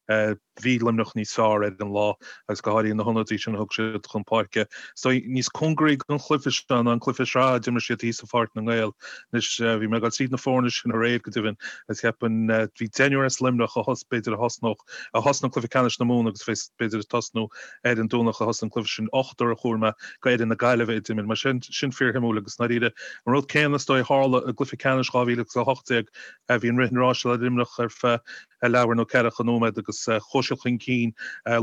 Bhí Luimneach níos fearr ar an lá agus go háirithe na hionadaithe sin a thug siad chun páirce. So níos cóngaraí don chluiche seo ná an cluiche sraithe a d'imir siad thíos i Pháirc na nGael. Anois bhí mé ag dul tríd na foirne sin aréir go deimhin agus cheapfainn bhí deichniúr as Luimneach a thos b'fhéidir a thosnódh a thosnaigh cluiche ceannais na Mumhan agus bheas b'fhéidir ag tosnú ar an Domhnach a thosaigh an cluiche sin ochtar a chuala mé go fhoireann na Gaillimhe a d'imir. Mar sin sin fíorshuimiúil agus i ndáiríre an rud céanna is dóigh a tharla i gcluiche ceannais 2018 bhí an rith an ráis le Luimneach ar feadh leathuair nó ceathracha nóiméad agus chuaigh siad chun cinn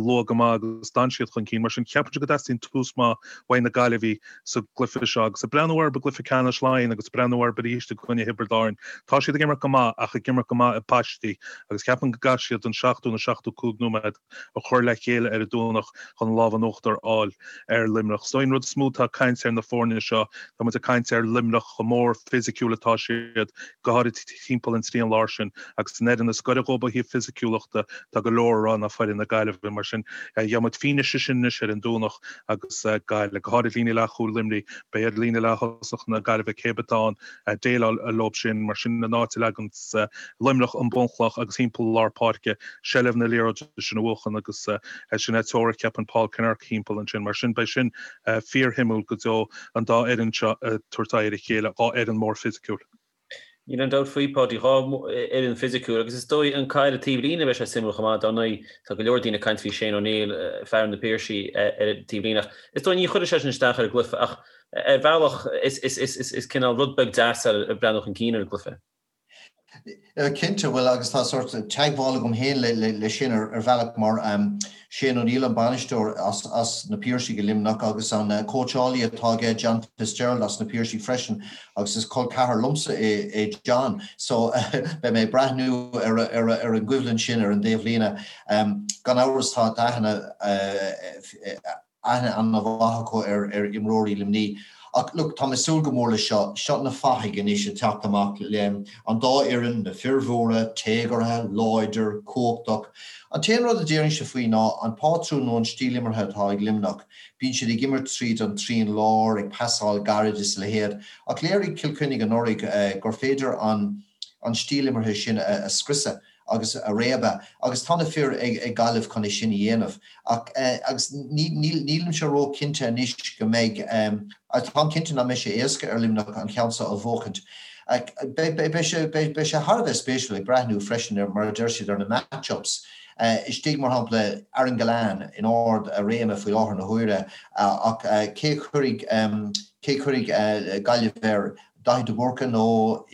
luath go maith agus d'fhan siad chun cinn. Mar sin, ceapaimse go dteastaíonn tús maith uaidh na Gaillimhigh sa gcluiche seo. Agus ag breathnú orthu i gcluiche ceannais Laighean agus ag breathnú orthu arís i gcoinne Thiobraid Árann, tá siad ag imirt go maith ach ag imirt go maith i bpaistí agus ceapaim go gcaithfidh siad an 70 nó 75 nóiméad a chur le chéile ar an Domhnach chun an lámh in uachtar a fháil ar Luimneach. So an rud is mó atá ag caint ar na foirne seo, tá muid ag caint ar Luimneach chomh mór fisiciúil atá siad, go háirid timpeall an trian láir sin, agus an fhoireann is gaire dhóibh ó thaobh fisiciúlachta, tá go leor a rá ná foireann na Gaillimhe. Mar sin, gheobhaidh muid fianaise sin anois ar an Domhnach agus Gaillimh, go háirid líne leathchúil Luimnigh, beidh ar líne leath-thosach na Gaillimhe cé atá ann, déileáil leo sin. Mar sin, an áit a leagann Luimneach an bunchloch agus thimpeall lár páirce, seilbh na liathróide sin a bhuachan agus sin é teoiric cheapfainn Paul Kinnerk thimpeall ansin. Mar sin, beidh sin fíorshuimiúil go deo, an dá fhoireann seo ag tabhairt aghaidh ar a chéile, dhá fhoireann mór fisiciúil. Níl aon dabht faoi, Páidí, dhá fhoireann fisiciúil agus is dóigh an caid ar taobh líne beidh sé suimiúil chomh maith. Dar ndóigh, tá go leor daoine ag caint faoi Shane O'Neill, fear na Piarsaigh ar an taobh líne ach is dóigh ní chuirfidh sé sin isteach ar an gcluiche ach Ar bhealach, is cineál rud beag deas é ag breathnú chun cinn ar an gcluiche. Cinnte, bhuel agus tá sórt teagmháil agam féin le sin ar bhealach mar Shane O'Neill an bainisteoir as na Piarsaigh i Luimneach agus an cóitseálaí atá aige John Fitzgerald as na Piarsaigh freisin agus is col ceathar liomsa é John so beidh mé ag breathnú ar an gcoimhlint sin ar an dtaobh líne. Gan amhras tá aithne aithne an-mhaith acu ar imreoirí Luimnigh. Ach look, tá mé ag súil go mór leis seo. Seo na fathaigh anois ag teacht amach le an dá fhoireann, na fir mhóra, téagartha, láidir, cumhachtach. An t-aon rud a déarfainnse faoi ná an pátrún nó an stíl imeartha atá ag Luimneach. Bíonn siad ag imirt tríd an trian láir, ag pasáil gairid is a leithéid. Ach léirigh Cill Chainnigh anuraidh gur féidir an an stíl imeartha sin a scriosadh. agus a réabadh agus tá na fir ag Gaillimh chun é sin a dhéanamh ach agus nílimse ró-chinnte anois go mbeidh, táim cinnte nach mbeidh sé éasca ar Luimneach an ceann seo a bhuachaint. Beidh sé beidh sé thar a bheith spéisiúil ag breathnú freisin ar, mar a deir siad, ar na match-ups. Istigh, mar shampla, Aaron Gillane in ard a réime faoi láthair na huaire ach cé a chuirfidh cé a chuirfidh Gaillimh air? Daithí de Búrca nó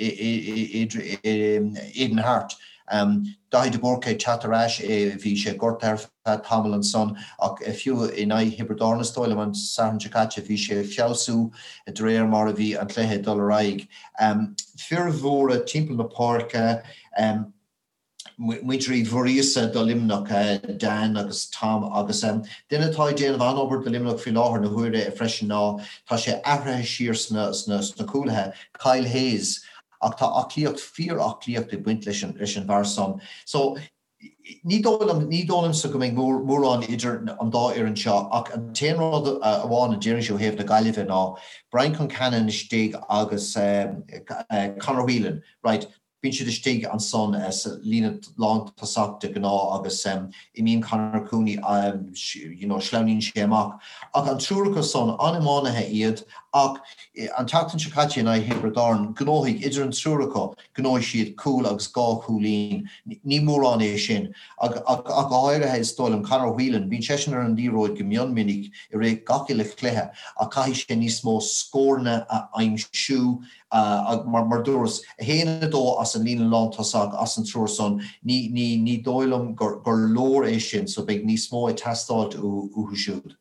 Aidan Harte. Daithí de Búrca ag teacht ar ais, bhí sé gortaithe ar feadh tamaill ansan ach fiú in aghaidh Thiobraid Árann is dóigh liom an Satharn seo caite bhí sé ag feabhsú de réir mar a bhí an cluiche ag dul ar aghaidh. Fir mhóra timpeall na páirce. Muintir Uí Mhuiríosa do Luimneach, Dan agus Tom agus duine atá ag déanamh an-obair do Luimneach faoi láthair na huaire freisin ná tá sé athraithe siar sna cúlaithe, Kyle Hayes ach tá aclaíocht, fíor-aclaíocht ag baint leis an leis an bhfear san. So ní dóigh liom, ní dóigh liomsa go mbeidh mórán idir an dá fhoireann seo ach an t-aon rud amháin a déarfainnse ó thaobh na Gaillimhe ná Brian Concannon istigh agus Conor Whelan, right, Bíonn siad istigh ansan sa líne lántosach de ghnáth agus imíonn Conor Cooney, you know, sleamhnaíonn sé amach. Ach an triúr acu san, an-iománaithe iad ach an tseachtain seo caite in aghaidh Thiobraid Árann, ghnóthaigh, idir an triúr acu, ghnóthaigh siad cúl agus dhá chúilín. Ní mórán é sin. Ach go háirithe, is dóigh liom, Conor Whelan, bíonn seisean ar an liathróid go mion minic i rith gach uile chluiche ach caithfidh sé níos mó scóranna a aimsiú, Mar dúras, 1, 2 as an líne lántosach, as an triúr san, ní, ní, ní dóigh liom gur, gur leor é sin, so beidh níos mó ag teastáilt uathu siúd.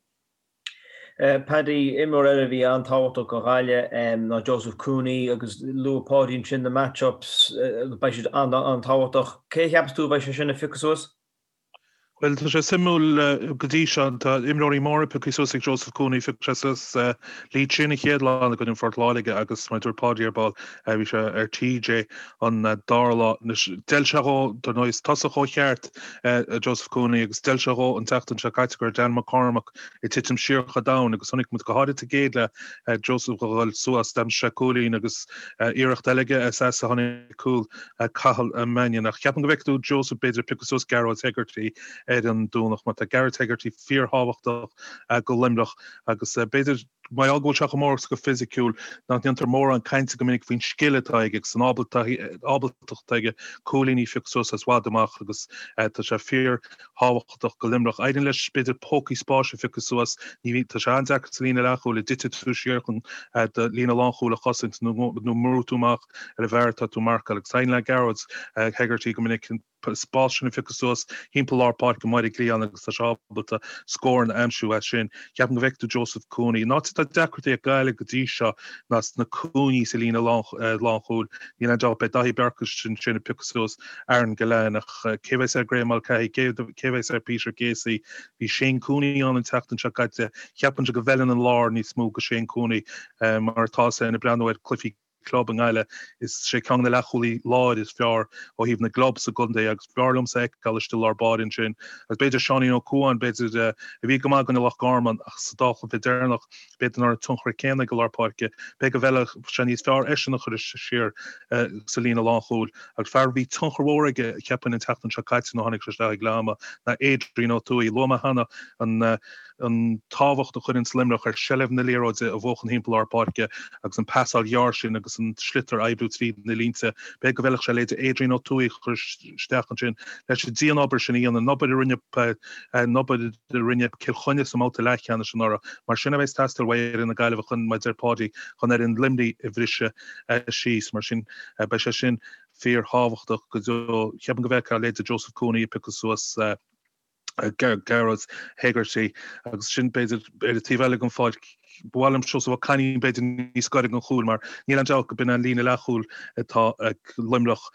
Paddy, imreoir eile a bhí an-tábhachtach do Ghaillimh ná Joseph Cooney agus luaigh Páidí ansin na match-ups, beidh siad an-tábhachtach. Cé a cheapas tú a bheidh sé sin a phiocadh suas? Bhuel, tá sé suimiúil go dtí seo, tá imreoirí móra pioctha suas ag Joseph Cooney, phioc sé suas Lee Chin an chéad lá i gcoinne Phort Láirge agus mar a dúirt Páidí ar ball, bhí sé ar TJ an dara lá. Anois, d'fheil sé dhó, dar ndóigh, is tosach ó cheart é Joseph Cooney agus d'fheil sé dhó an tseachtain seo caite go raibh Dan McCormack ag titim siar chomh domhain agus chonaic muid go háirid sa gcéad leath Joseph a dhul suas, d'aimsigh sé cúilín agus iarracht eile aige as a tháinig cúl. Cathal Mannion. Ach ceapaim go bhfeicfidh tú Joseph b'fhéidir ag piocadh suas Gearóid Hegarty ar an Domhnach mar tá Gearóid Hegarty fíorthábhachtach go Luimneach agus b'fhéidir mar gheall go bhfuil sé chomh mór agus chomh fisiciúil nach ndéantar mórán cainte go minic faoin scil atá aige agus an ábaltacht atá aige cúilíní a phiocadh suas as i bhfad amach agus tá sé fíorthábhachtach go Luimneach. Éiríonn leis b'fhéidir pócaí spáis a phiocadh suas. Ní bhíonn, tá sé an-deacair sa líne leathchúil a dtiteann tú siar chun do líne lánchúil a chosaint nó nó mbrú tú amach ar an bhfear atá tú ag marcáil agus éiríonn le Gearóid Hegarty go minic an spás sin a phiocadh suas thimpeall lár páirce amuigh ar an gcliathán agus tá sé ábalta scóranna a aimsiú as sin. Ceapaim go bhfeicfidh tú Joseph Cooney. An áit atá deacrachtaí ag Gaillimh go dtí seo ná sna cúinní sa líne lánchúil. Níl aon dabht beidh Daithí Beirce ansin ag piocadh suas Aaron Gillane ach cé bheas ar Graeme Mulcahy, cé bheas ar Peter Casey? Bhí Shane Cooney ann an tseachtain seo caite. Ceapaimse go bhfeileann an lár níos mó go Shane Cooney mar atá sé ag breathnú ar cluichí club i nGaillimh. Is sé ceann de na leathchúlaí láir is fearr ó thaobh na gclub sa gcontae agus b'fhearr liomsa é a fheiceáil istigh i lár báire ansin. Agus b'fhéidir Seáinín Ó Cuain, b'fhéidir, a bhí go maith i gcoinne Loch Garman ach sa dá chluiche deireanach b'fhéidir nach raibh an tionchar céanna aige i lár páirce. B'fhéidir go bhfeilfeadh sé níos fearr eisean a chur siar sa líne lánchúil. Agus fear a bhí tionchar mhór aige, cheapfainn, an tseachtain seo caite nuair a tháinig sé isteach ag leath ama ná Adrian Ó Tuathaigh. Luaigh mé cheana an an tábhacht a chuireann Luimneach ar seilbh na liathróide a bhuachan thimpeall lár páirce agus an pasáil ghearr sin agus an sliotar a oibriú tríd na línte. B'fhéidir go bhfeilfeadh sé leithéid Adrian Ó Tuathaigh a chur isteach ansin leis an dianobair sin a dhéanamh, an obair a rinne an obair a rinne Cill Chainnigh sa mbabhta leathcheannais anuraidh. Mar sin a bheas ag teastáil uaidh fhoireann na Gaillimhe chun, mar a deir Páidí, chun fhoireann Luimnigh a bhriseadh síos. Mar sin beidh sé sin fíorthábhachtach go deo. Ceapaim go bhfeicfeá leithéid Joseph Cooney ag piocadh suas Gearóid Hegarty agus sin b'fhéidir ar an taobh eile den pháirc. Ba mhaith liom Seosamh Ó Cainín b'fhéidir níos gaire don chúl mar níl aon dabht go b'in an líne leathchúil atá ag Luimneach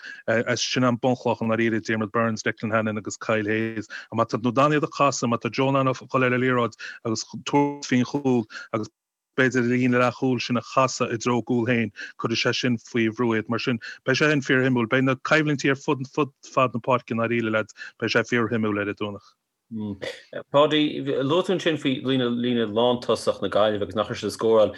is sin an bunchloch i ndáiríre, Diarmaid Byrnes, Declan Hannon agus Kyle Hayes. Má tá tú in ann iad a chasadh, má tá Joe in ann a dhul ar an liathróid agus tabhairt faoin chúl agus b'fhéidir an líne leathchúil sin a chasadh i dtreo a gcúil féin, cuirfidh sé sin faoi bhrú iad. Mar sin, beidh sé sin fíorshuimiúil. Beidh na coimhlintí ar fud fud fad na páirce i ndáiríre, leaids, beidh sé fíorshuimiúil ar an Domhnach. Páidí, luaigh tú ansin faoi líne líne lántosach na Gaillimhe agus nach raibh siad ag scóráil.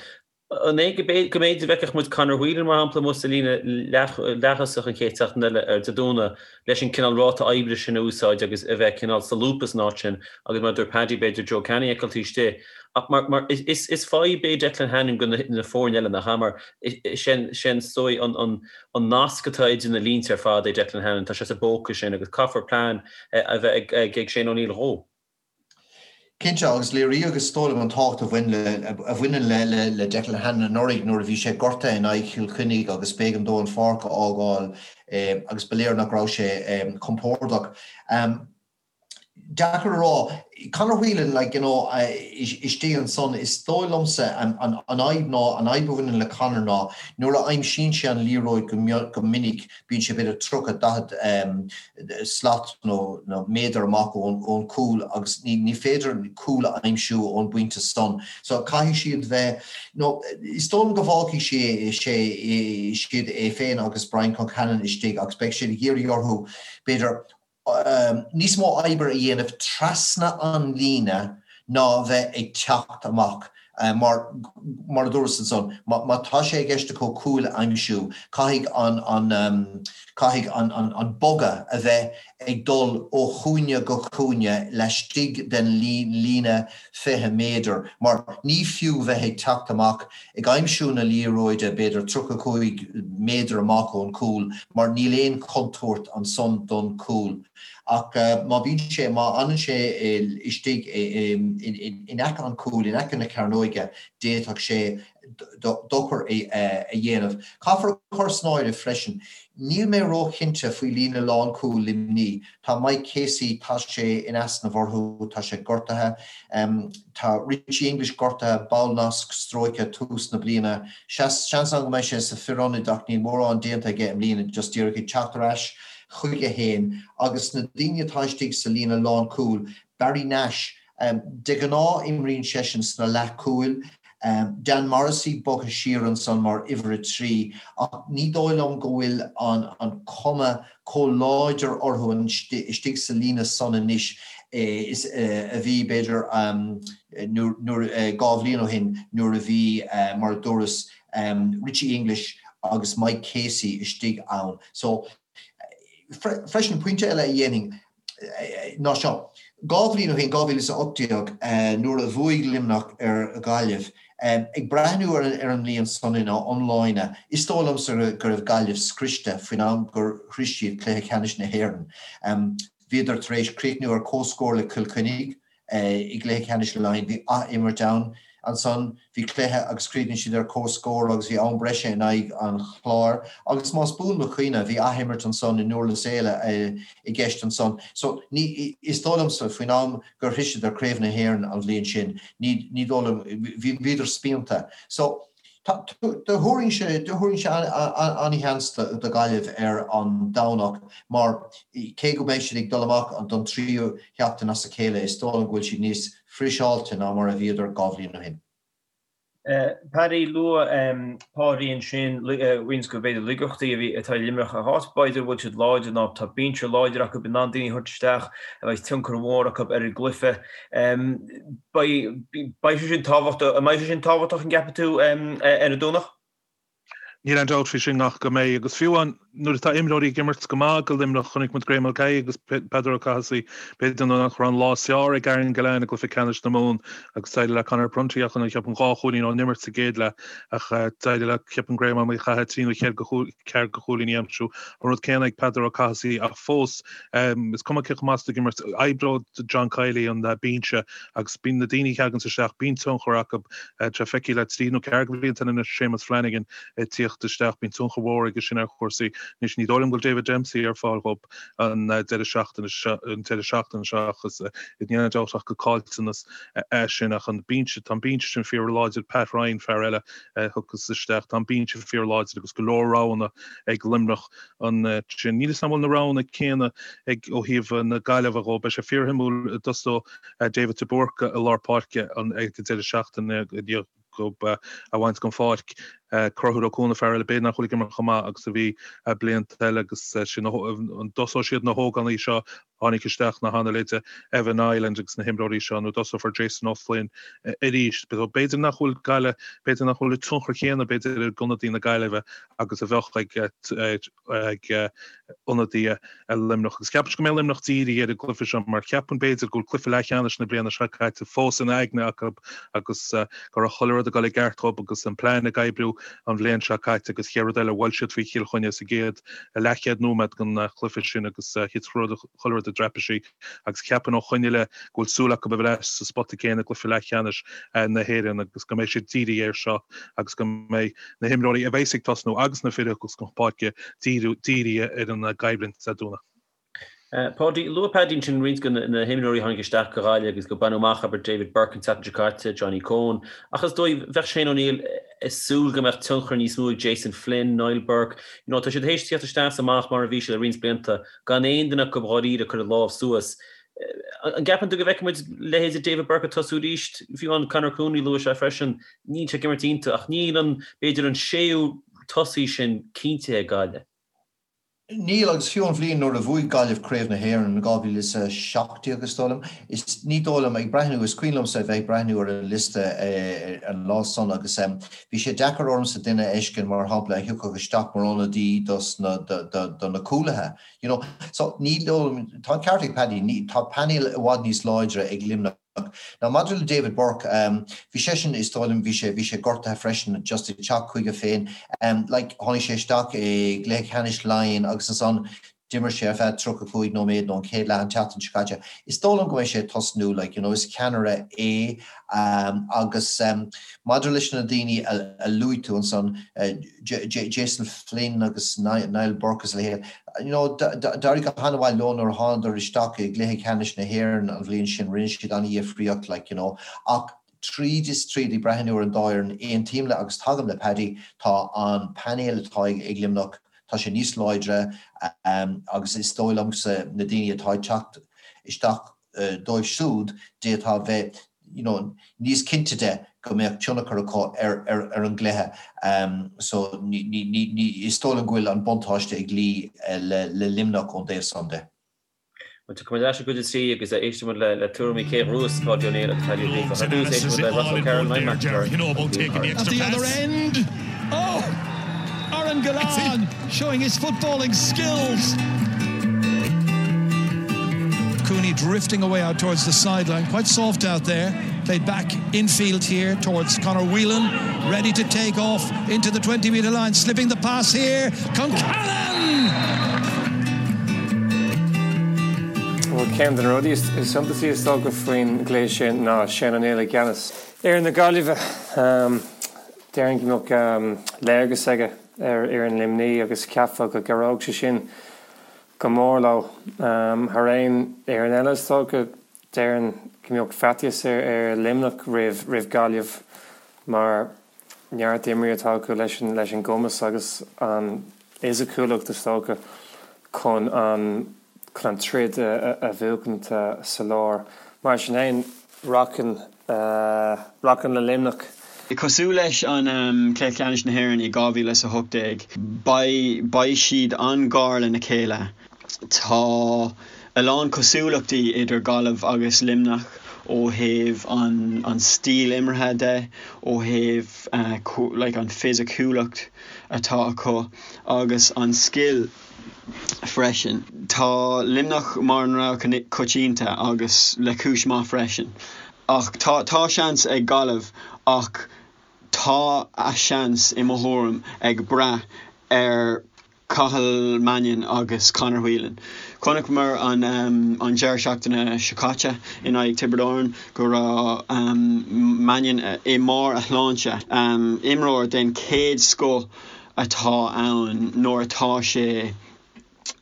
An é go mb'fhéidir go bhfeicfeadh muid Conor Whelan, mar shampla, amuigh sa líne leath-thosach an chéad seachtain eile ar Dé Domhnaigh leis an cineál ráta oibre sin a úsáid agus a bheith cineál solúbtha san áit sin agus mar a dúirt Paddy b'fhéidir Joe Canning a fheiceáil taobh istigh. Ach mar, mar, is, is fadhb é Declan Hannon go na foirne eile, nach ea? Mar is é an, is dóigh an, an, an nasc atá idir na línte ar fad é Declan Hannon, tá sé sa bpóca sin agus caithfear plean a bheith ag, ag Shane O'Neill dhó. Cinnte, agus léiríodh is dóigh liom an tábhacht a bhain le, a bhaineann le, le, le Declan Hannon anuraidh nuair a bhí sé gortaithe in aghaidh Chill Chainnigh agus b'éigean dó an pháirc a fhágáil agus ba léir nach raibh sé compordach. Deacair a rá. Conor Whelan, like, you know, istigh ansan, is dóigh liomsa an fhadhb ná, an fhadhb a bhaineann le Conor ná nuair a aimsíonn sé an liathróid go minic, bíonn sé b'fhéidir 30, 40 slat nó méadar amach ón chúl agus ní féidir cúl a aimsiú ón bpointe san. So caithfidh siad bheith, nó is dóigh liom go bhfágfaidh sé, sé, siad é féin agus Brian Concannon istigh agus beidh siad ag iarraidh orthu, b'fhéidir, níos mó oibre a dhéanamh trasna an líne ná bheith ag teacht amach mar, mar a dúras ansan, má tá sé i gceist acu cúil a aimsiú, caithfidh an, an, caithfidh an, an, an bogadh a bheith ag dul ó chúinne go cúinne laistigh den líne 20 méadar mar ní fiú bheith ag teacht amach ag aimsiú na liathróide b'fhéidir 35 méadar amach ón gcúl mar níl aon chontúirt ansan don chúl. Ach má bhíonn sé, má fhanann sé istigh in aice an chúil, in aice na cearnóige, d'fhéadfadh sé dochar a dhéanamh. Caithfear a chur san áireamh freisin, níl mé róchinnte faoi líne lánchúil Luimnigh. Tá Mike Casey, tá sé in easnamh orthu, tá sé gortaithe. Tá Richie English gortaithe, ballnasc stróicthe tús na bliana. Seans ann go mbeidh sé sa fir ionaid ach níl mórán déanta aige i mbliana, just díreach ag teacht ar ais. chuige féin agus na daoine atá istigh sa líne lánchúil, Barry Nash, de ghnáth imríonn seisean sna leathchúil, Dan Morrissey bogtha siar ansan mar uimhir 3 ach ní dóigh liom go bhfuil an chuma chomh láidir orthu istigh sa líne san anois is a bhí b'fhéidir nuair 2 bhliain ó shin nuair a bhí mar a dúras Richie English agus Mike Casey istigh ann. So freisin pointe eile a dhéanfainn ná seo, 2 bhliain ó shin, 2018, nuair a bhuaigh Luimneach ar Ghaillimh, ag breathnú ar an mbliain san ina iomláine, is dóigh liomsa go raibh Gaillimh scriosta faoin am gur shroich siad cluiche ceannais na hÉireann. Bhíodar tar éis críochnú ar comhscór le Cill Chainnigh. I gcluiche ceannais Laighean bhí ath-imirt ann. Ansan bhí cluiche agus chríochnaigh siad ar comhscór agus bhí am breise in aghaidh an Chláir. Agus más buan mo chuimhne bhí ath-imirt ansan i nDurlas Éile i gceist ansan. So ní, is dóigh liomsa faoin am gur shroiseadar Craobh na hÉireann an bhliain sin, ní, ní dóigh liom, bhí, bhíodar spíonta. So Thabharfainnse an-sheans do Ghaillimh ar an Domhnach mar cé go mbeidh siad ag dul amach don tríú sheachtain as a chéile, is dóigh liom go bhfuil siad níos friseáilte ná mar a bhíodar 2 bhliain ó shin. Paddy, luaigh Páidí ansin roinnt de b'fhéidir laigeachtaí a bhí atá ag Luimneach an áit b'fhéidir a bhfuil siad láidir ná tá binse láidir acu in ann daoine a thabhairt isteach a bheidh tionchar mhór acu ar an gcluiche. Beidh sé sin tábhachtach, an mbeidh sé sin tábhachtach an gceapann tú ar an Domhnach? Níl aon dabht faoi sin ach go mbeidh agus fiú amháin nuair atá imreoirí ag imirt go maith do Luimneach, chonaic muid Graeme Mulcahy agus Peadar Ó Cathasaigh, b'fhéidir nach raibh an lá is fearr ag Aaron Gillane i gcluiche ceannais na Mumhan agus d'éirigh le Conor Prunty ach cheapfainn 2 chúilín ón imirt sa gcéad leath ach d'éirigh le ceapaim Graeme Ó Cathasaigh trí nó ceathair de chúilíní a aimsiú. An rud céanna ag Peadar Ó Cathasaigh ach fós Is cuma cé chomh maith is atá ag imirt, oibreoidh John Kiely an binse agus bíonn na daoine a theaganns isteach, bíonn tionchar acu. Tá sé feicthe le trí nó ceathair de bhlianta anois Séamus Flanagan ag tíocht isteach, bíonn tionchar mhór aige sin ar chúrsaí. Anois ní dóigh liom go bhfuil David Dempsey ar fáil dhób an deireadh seachtaine seo, an deireadh seachtaine seo ach is níl aon dabht ach gur caillteanas é sin ach an binse, tá an binse sin fíor láidir, Pat Ryan, fear eile a thiocfas isteach, tá an binse fíor láidir agus go leor roghanna ag Luimneach. ansin. Níl 'fhios a'm an bhfuil na roghanna céanna ag ó thaobh na Gaillimhe dhó. Beidh sé fíorshuimiúil an dtosóidh David de Búrca i lár páirce ag an deireadh seachtaine i ndiaidh dhób é a bhaint den pháirc. Conchúr Ó Cuana fear eile b'fhéidir nach bhfuil ag imirt chomh maith agus a bhí blianta eile agus sin an dtosóidh siad na hógánaigh seo tháinig isteach na han-leithéide Evan Ireland agus na himreoirí seo nó dtosófar Jason O'Flynn arís. B'fhéidir nach bhfuil Gaillimh, b'fhéidir nach bhfuil an tionchar chéanna b'fhéidir ag ionadaí na Gaillimhe agus a bheadh ag ag ionadaithe Luimneach. Agus ceapaim go mbeidh Luimneach dírithe ar an gcluiche seo mar ceapaim b'fhéidir go bhfuil cluiche leathcheannais na bliana seo caite fós ina aigne acu agus go raibh chuile rud ag dul i gceart dhób agus an plean ag oibriú an bhliain seo caite agus chéad rud eile bhuail siad faoi Chill Chainnigh sa gcéad leathchéad nóiméad den chluiche sin agus thit chuile rud i dtraipisí agus ceapaim ó shoin i leith go bhfuil súil acu a bheith ar ais sa spota céanna i gcluiche leathcheannais na hÉireann agus go mbeidh siad dírithe air seo agus go mbeidh na himreoirí a bheas ag tosnú agus na fir a thiocfas chun páirce dírithe ar an gcoimhlint Dé Domhnaigh. Páidí, luaigh Paddy ansin roinnt de na himreoirí a tháinig isteach do Ghaillimh agus gur baineadh amach, abair, David Burke an tseachtain seo caite, Johnny Coen, ach is dóigh, bheadh Shane O'Neill ag súil go mbeadh tionchar níos mó ag Jason Flynn, Niall Burke, you know, tá siad théis tíocht isteach is amach mar a bhí siad le roinnt blianta, gan aon duine acu dháiríre ag cur a lámh suas. An gceapann tú go bhfeicfidh muid leithéide David Burke ag tosú arís? Fiú amháin Conor Cooney, luaigh sé freisin, níl sé ag imirt iontach ach níl an, b'fhéidir an séú tosaí sin cinntithe ag Gaillimh. Níl, agus fiú an bhliain nuair a bhuaigh Gaillimh Craobh na hÉireann in 2017, is dóigh liom, is ní dóigh liom, ag breathnú, is cuimhin liomsa a bheith ag breathnú ar an liosta an lá san agus bhí sé deacair ormsa duine a fheiscint, mar shampla, a thiocfadh isteach mar ionadaí dos na, do na cúlaithe, you know. So ní dóigh liom, tá an ceart ag Paddy, ní, tá painéal i bhfad níos láidre ag Luimneach. Now maidir le David Burke, bhí seisean, is dóigh liom, bhí sé, bhí sé gortaithe freisin, just ag teacht chuige féin. Like, tháinig sé isteach i gcluiche ceannais Laighean agus ansan d'imir sé ar feadh 35 nóiméad nó an chéad leath an tseachtain seo caite. Is dóigh liom go mbeidh sé ag tosnú, like, you know, is ceannaire é agus maidir leis na daoine a luaigh tú ansan, Jason Flynn agus Niall Burke agus a leithéid, You know, d'éirigh go han-mhaith leo nuair a thánadar isteach i gcluiche ceannais na hÉireann an bhliain sin, rinne siad an-dhifríocht, like, you know. Ach tríd is tríd, ag breathnú ar an dá fhoireann, aontaím le agus tagaim le Paddy, tá an painéal atá ag Luimneach, Tá sé níos láidre agus is dóigh liomsa na daoine atá ag teacht isteach dóibh siúd d'fhéadfá a bheith you know níos cinnte de go mbeadh tionchar acu ar ar an gcluiche. So ní ní ní is dóigh liom go bhfuil an buntáiste ag luí le le Luimneach ón dtaobh san de. Bhuel, tiocfaidh muid ar ais i gcuid a 3 agus éistfidh muid le tuairimí Cé Ghruas, Páidí Ó Néill agus Paddy Ó Gríofa. Ar dtús, éistfidh muid le Ross O'Carroll, Niall McIntyre agus Liam Porter. At the other end, oh! Aaron Gillane showing his footballing skills. Cooney drifting away out towards the sideline, quite soft out there. Played back infield here towards Conor Whelan, ready to take off into the 20 metre line, slipping the pass here. Concannon! Bhuel, ceann de na rudaí is suntasaí is dócha faoin gcluiche sin ná Shane O'Neill i gceannas fhoireann na Gaillimhe. Déarfainn go mbeadh léargas aige ar fhoireann Luimnigh agus cheapfá go gcabhródh sé sin go mór leo. Thar aon fhoireann eile is dócha, déarfainn go mbeadh faitíos ar Luimneach roimh Ghaillimh mar neart imreoirí atá acu leis an gcumas agus an fhisiciúlacht is dócha chun an chun an troid a bhuachaint sa lár. Mar sin féin, rachainn rachainn le Luimneach. Cosúil leis an Cluiche Ceannais na hÉireann i 2018, beidh beidh siad an-ghar lena chéile. Tá a lán cosúlachtaí idir Gaillimh agus Luimneach ó thaobh an an stíl imeartha de, ó thaobh like an fisiciúlacht atá acu agus an scil freisin. Tá Luimneach mar an rogha coitianta agus le cúis maith freisin. Ach tá tá seans ag Gaillimh ach tá a seans i mo thuairim ag brath ar Cathal Mannion agus Conor Whelan. Chonaiceamar an an deireadh seachtaine seo caite in aghaidh Tiobraid Árann go raibh Mannion i mbarr a shláinte. Imreoir den chéad scoth atá ann nuair atá sé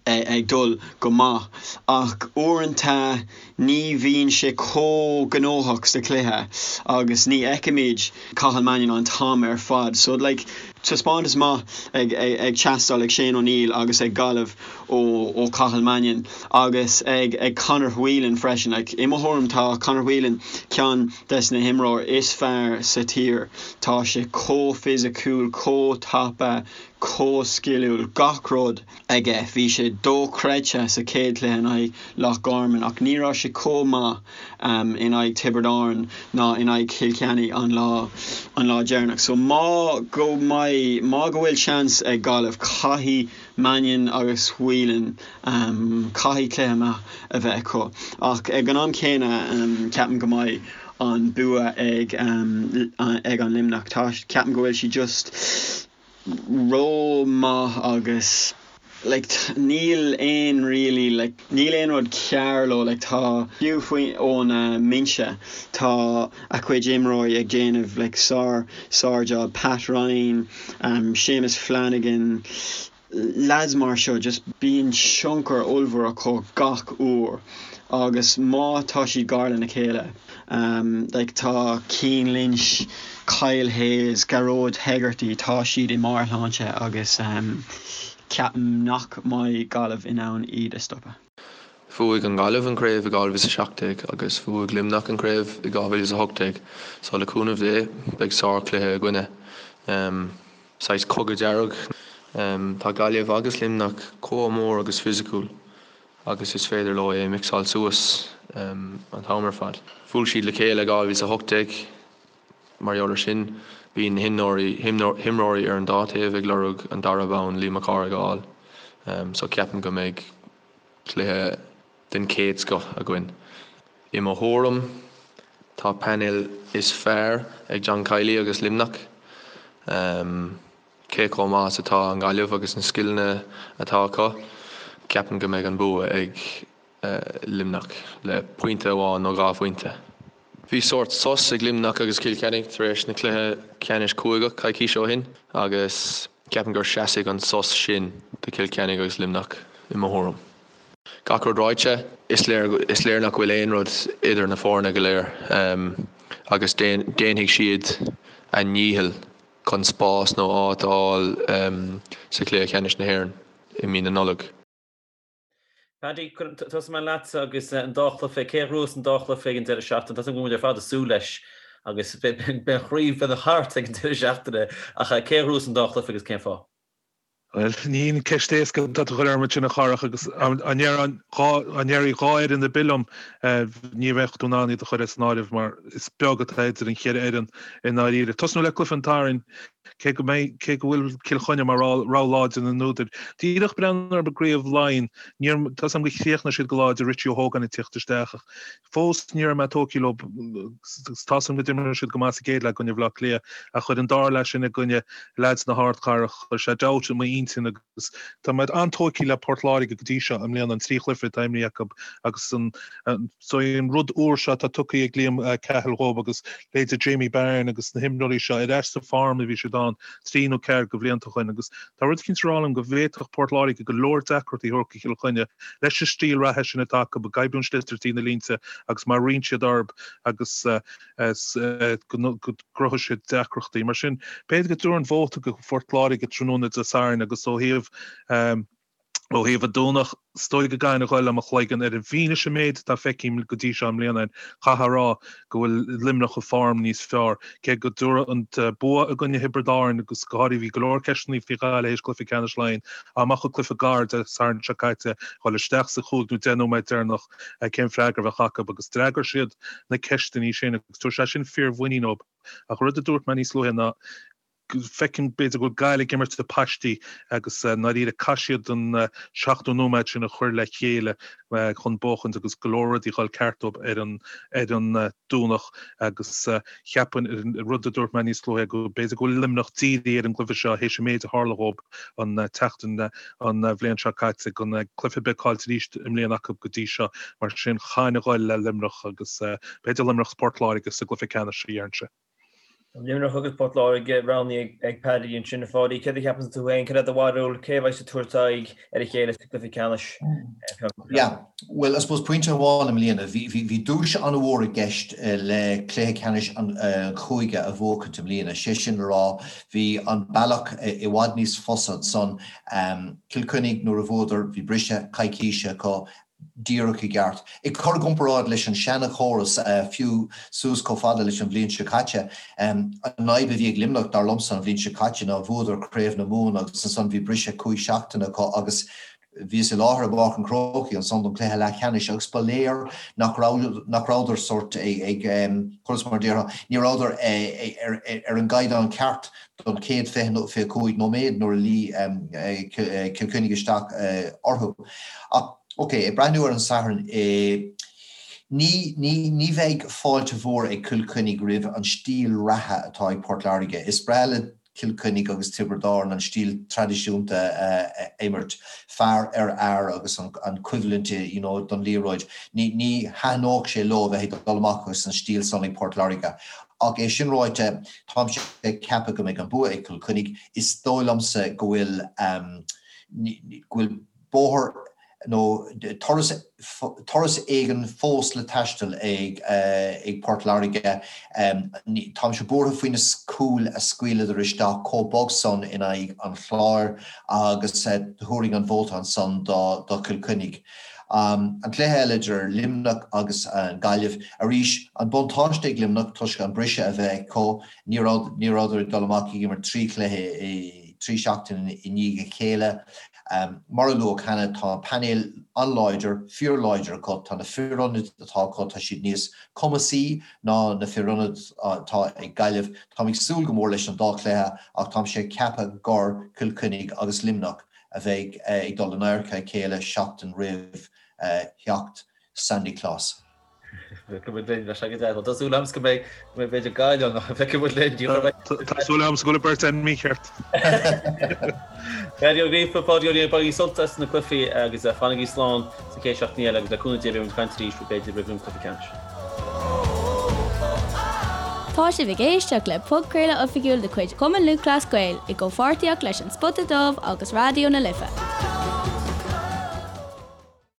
ag dul go maith ach uaireanta ní bhíonn sé chomh gnóthach sa chluiche agus ní fheicimid Cathal Mannion an t-am ar fad. So like taispeántas maith ag ag teastáil ag Shane O'Neill agus ag Gaillimh ó ó Cathal Mannion agus ag ag Conor Whelan freisin. Like i mo thuairim tá Conor Whelan ceann des na himreoir is fearr sa tír. Tá sé chomh fisiciúil, chomh tapa, chomh sciliúil, gach rud aige. Bhí sé dochreidte sa chéad chluiche in aghaidh Loch Garman ach ní raibh sé chomh maith in aghaidh Tiobraid Árann ná in aghaidh Chill Chainnigh an lá an lá deireanach. So má go mbeidh má go bhfuil seans ag Gaillimh caithfidh Mannion agus Whelan caithfidh cluiche maith a bheith acu. Ach ag an am céanna ceapaim go mbeidh an bua ag ag an Luimneach. Tá ceapaim go bhfuil siad just ró maith agus like níl aon really like níl aon rud cearr leo like tá fiú faoi ón mbinse tá a chuid imreoirí ag déanamh like sár sár job Pat Ryan Séamus Flanagan lads mar seo just bíonn tionchar ollmhór acu gach uair agus má tá siad gar lena chéile like tá Cian Lynch, Kyle Hayes, Gearóid Hegarty tá siad i mbarr a shláinte agus ceapaim nach mbeidh Gaillimh in ann iad a stopadh. Bhuaigh an Ghaillimh an craobh i 2017 agus bhuaigh Luimneach an craobh i 2018 so le cúnamh Dé beidh sár chluiche againne. Saghas cogadh dearg. Tá Gaillimh agus Luimneach chomh mór agus fisiciúil agus is féidir leo é mixáil suas an t-am ar fad. Bhuail siad le chéile i 2018. Mar gheall ar sin, bíonn na himreoirí ar an dá taobh ag lorg an dara bonn Liam Mac Cárthaigh a fháil. So ceapaim go mbeidh cluiche den chéad scoth againn. I mo thuairim, tá painéal is fearr ag John Kiely agus Luimneach. Cé chomh maith is atá an Ghaillimh agus na scileanna atá acu, ceapaim go mbeidh an bua ag Luimneach le pointe amháin nó 2 phointe. Bhí sórt sos ag Luimneach agus Cill Chainnigh tar éis na cluiche ceannais cúigeach coicís ó shin agus ceapaim gur seasfaidh an sos sin do Chill Chainnigh agus Luimneach i mo thuairim. Gach rud ráite, is léir is léir nach bhfuil aon rud idir na foirne go léir agus déanfaidh siad a ndícheall. chun spás nó áit a fháil sa chluiche ceannais na hÉireann i mí na Nollag. Paddy, tosóidh mé leatsa agus an dá chluiche, cé a ghnóthós an dá chluiche ag an deireadh seachtaine? Tá a fhios agam go bhfuil muid ar fad ag súil leis agus beidh an chraobh, beidh an thart ag an deireadh seachtaine ach cé a ghnóthós an dá chluiche agus cén fáth? Bhuel, ní haon ceist éasca atá tú a chur orm ansin a Chárthach agus dá ndéarfaí 2 fhoireann ar bith liom ní bheadh tú in ann iad a chur as an áireamh mar is beag atá idir an cheithre fhoireann i ndáiríre. Tosnú le cluiche an tSathairn, cé go mbeidh, cé go bhfuil Cill Chainnigh mar rogha láidir na n-údar. Díreach breathnú ar an gCraobh Laighean, níor, tá a fhios agam gur chríochnaigh siad go láidir Richie Ó hÓgáin ag tíocht isteach ach Fós ní raibh mé tógtha leo agus tá a fhios agam go d'imir siad go maith sa gcéad leath i gcoinne Bhaile Átha Cliath ach chuir an dara leath sin i gcoinne leaids na hardchathrach, chuir sé dabht i m'intinn agus tá mé an-tógtha le Port Láirge go dtí seo i mbliana, an trí chluiche atá imrithe acu agus an so an rud úr seo atá tugtha ag Liam Cahill dhóibh agus leithéidí Jamie Byrne agus na himreoirí seo ar ais sa form a bhí siad ann trí nó ceathair de bhlianta ó shin agus tá rud eicínt ag rá liom go bhféadfadh Port Láirge go leor deacrachtaí a thabhairt do Chill Chainnigh leis an stíl reatha sin atá acu, ag oibriú an sliotar trí na línte agus má roinnt siad orthu agus go gcruthóidh siad deacrachtaí. Mar sin, b'fhéidir go dtabharfainn vóta go Phort Láirge tráthnóna Dé Sathairn agus ó thaobh ó thaobh an Domhnach, is dóigh go gcaithfinn a ghoil le mo chloigeann ar an bhfianaise an méid atá feicthe go dtí seo i mbliana, chaithfeá a rá go bhfuil Luimneach i form níos fearr. Cé go dtabharfadh an bua i gcoinne Thiobraid Árann agus go háirithe bhí go leor ceisteanna faoi Ghaillimh théis cluiche ceannais Laighean, dá mbeadh an cluiche gar Dé Sathairn seo caite, dhul isteach sa chúig nó deich nóiméad deireanach, cén freagra a bheadh acu agus d'fhreagair siad na ceisteanna sin agus tabharfaidh sé sin fíormhuinín dóibh. Ach rud a dúirt mé níos luaithe ná feicim b'fhéidir go bhfuil Gaillimh ag imirt le paistí agus i ndáiríre caithfidh siad an 70 nóiméad sin a chur le chéile chun buachaint agus go leor rudaí a dhul ceart dóibh ar an ar an Domhnach agus cheapfainn an rud a dúirt mé níos luaithe go b'fhéidir go bhfuil Luimneach dírithe ar an gcluiche seo théis an méid a tharla dhóibh an tseachtain an bhliain seo caite gan cluiche ar bith caillte arís i mbliana acu go dtí seo mar sin chaithfinn a ghoil le Luimneach agus b'fhéidir Luimneach 's Port Láirge sa gcluiche ceannais a déarfainnse. Luimneach agus Port Láirge roghnaithe ag Paddy ansin. A Pháidí, céard a cheapann tú féin? Cad é do bharúil? Cé a bheidh ag tabhairt aghaidh ar a chéile sa gcluiche ceannais? Yeah, bhuel, I suppose pointe amháin i mbliana, bhí, bhí, bhí duais an-mhór i gceist le cluiche ceannais an chúige a bhuachaint i mbliana, sé sin le rá, bhí an bealach i bhfad níos fusa ansan. Cill Chainnigh nuair a bhuadar, bhí briseadh coicíse acu, díreach i gceart. Ag cur i gcomparáid leis an seana-chóras, fiú suas chomh fada leis an bhliain seo caite, an fhadhb a bhí ag Luimneach, dar liomsa, an bhliain seo caite ná bhuadar Craobh na Mumhan agus ansan bhí briseadh cúig seachtaine acu agus bhíos i láthair i bPáirc an Chrócaigh ansan don chluiche leathcheannais agus ba léir nach raibh, nach rabhadar sórt ag, conas mar a déarfá, ní rabhadar ar an gcaighdeán ceart don chéad 20 nó 25 nóiméad nuair a luigh Cill Chainnigh isteach orthu. Ach, ok, ag breathnú ar an Satharn, ní, ní, ní bheidh fáilte mhór ag Cill Chainnigh roimh an stíl reatha atá ag Port Láirge. Is breá le Cill Chainnigh agus Tiobraid Árann an stíl traidisiúnta a imirt, fear ar fhear agus an choimhlint you know don liathróid. Ní, ní thaitneodh sé leo a bheith ag dul amach agus an stíl san ag Port Láirge. Ach é sin ráite, táimse ag ceapadh go mbeidh an bua ag Cill Chainnigh. Is dóigh liomsa go bhfuil go bhfuil bóthar nó turas turas éigin fós le taisteal ag ag Port Láirge. Táimse buartha faoi na cúil a scaoileadar isteach chomh bog san in aghaidh an Chláir agus thabharfainn an vóta ansan do do Chill Chainnigh. An cluiche eile idir Luimneach agus an Ghaillimh, arís, an buntáiste ag Luimneach toisc an briseadh a bheith acu, ní raibh, ní rabhadar ag dul amach ag imirt trí chluiche i trí seachtain i ndiaidh a chéile. Mar a luadh cheana, tá an painéal an-láidir, fíorláidir acu, tá na fir ionaid atá acu, tá siad níos cumasaí ná na fir ionaid atá ag Gaillimh. Táim ag súil go mór leis an dá chluiche ach táimse ag ceapadh gur Cill Chainnigh agus Luimneach a bheidh ag dul in adharca a chéile seachtain roimh theacht Sandy Claus. Feicfidh muid linn, bheadh sé go deas. Tá súil agamsa go mbeidh, go mbeidh b'fhéidir Gaillimh ann, ach feicfidh muid linn. Tá súil agamsa go bhfuil an bheirt againn mícheart. Paddy Ó Gríofa, Páidí Ó Riain, bainigí sult as na cluichí agus fanaigí slán sa chéad seachtain eile agus le cúnamh Dé beidh muid ag caint arís b'fhéidir roimh an cluiche ceannais. Tá sibh ag éisteacht le podchraoladh oifigiúil de chuid Chumann Lúthchleas Gael i gcomhpháirtíocht leis An Spota Dubh agus Raidió na Life.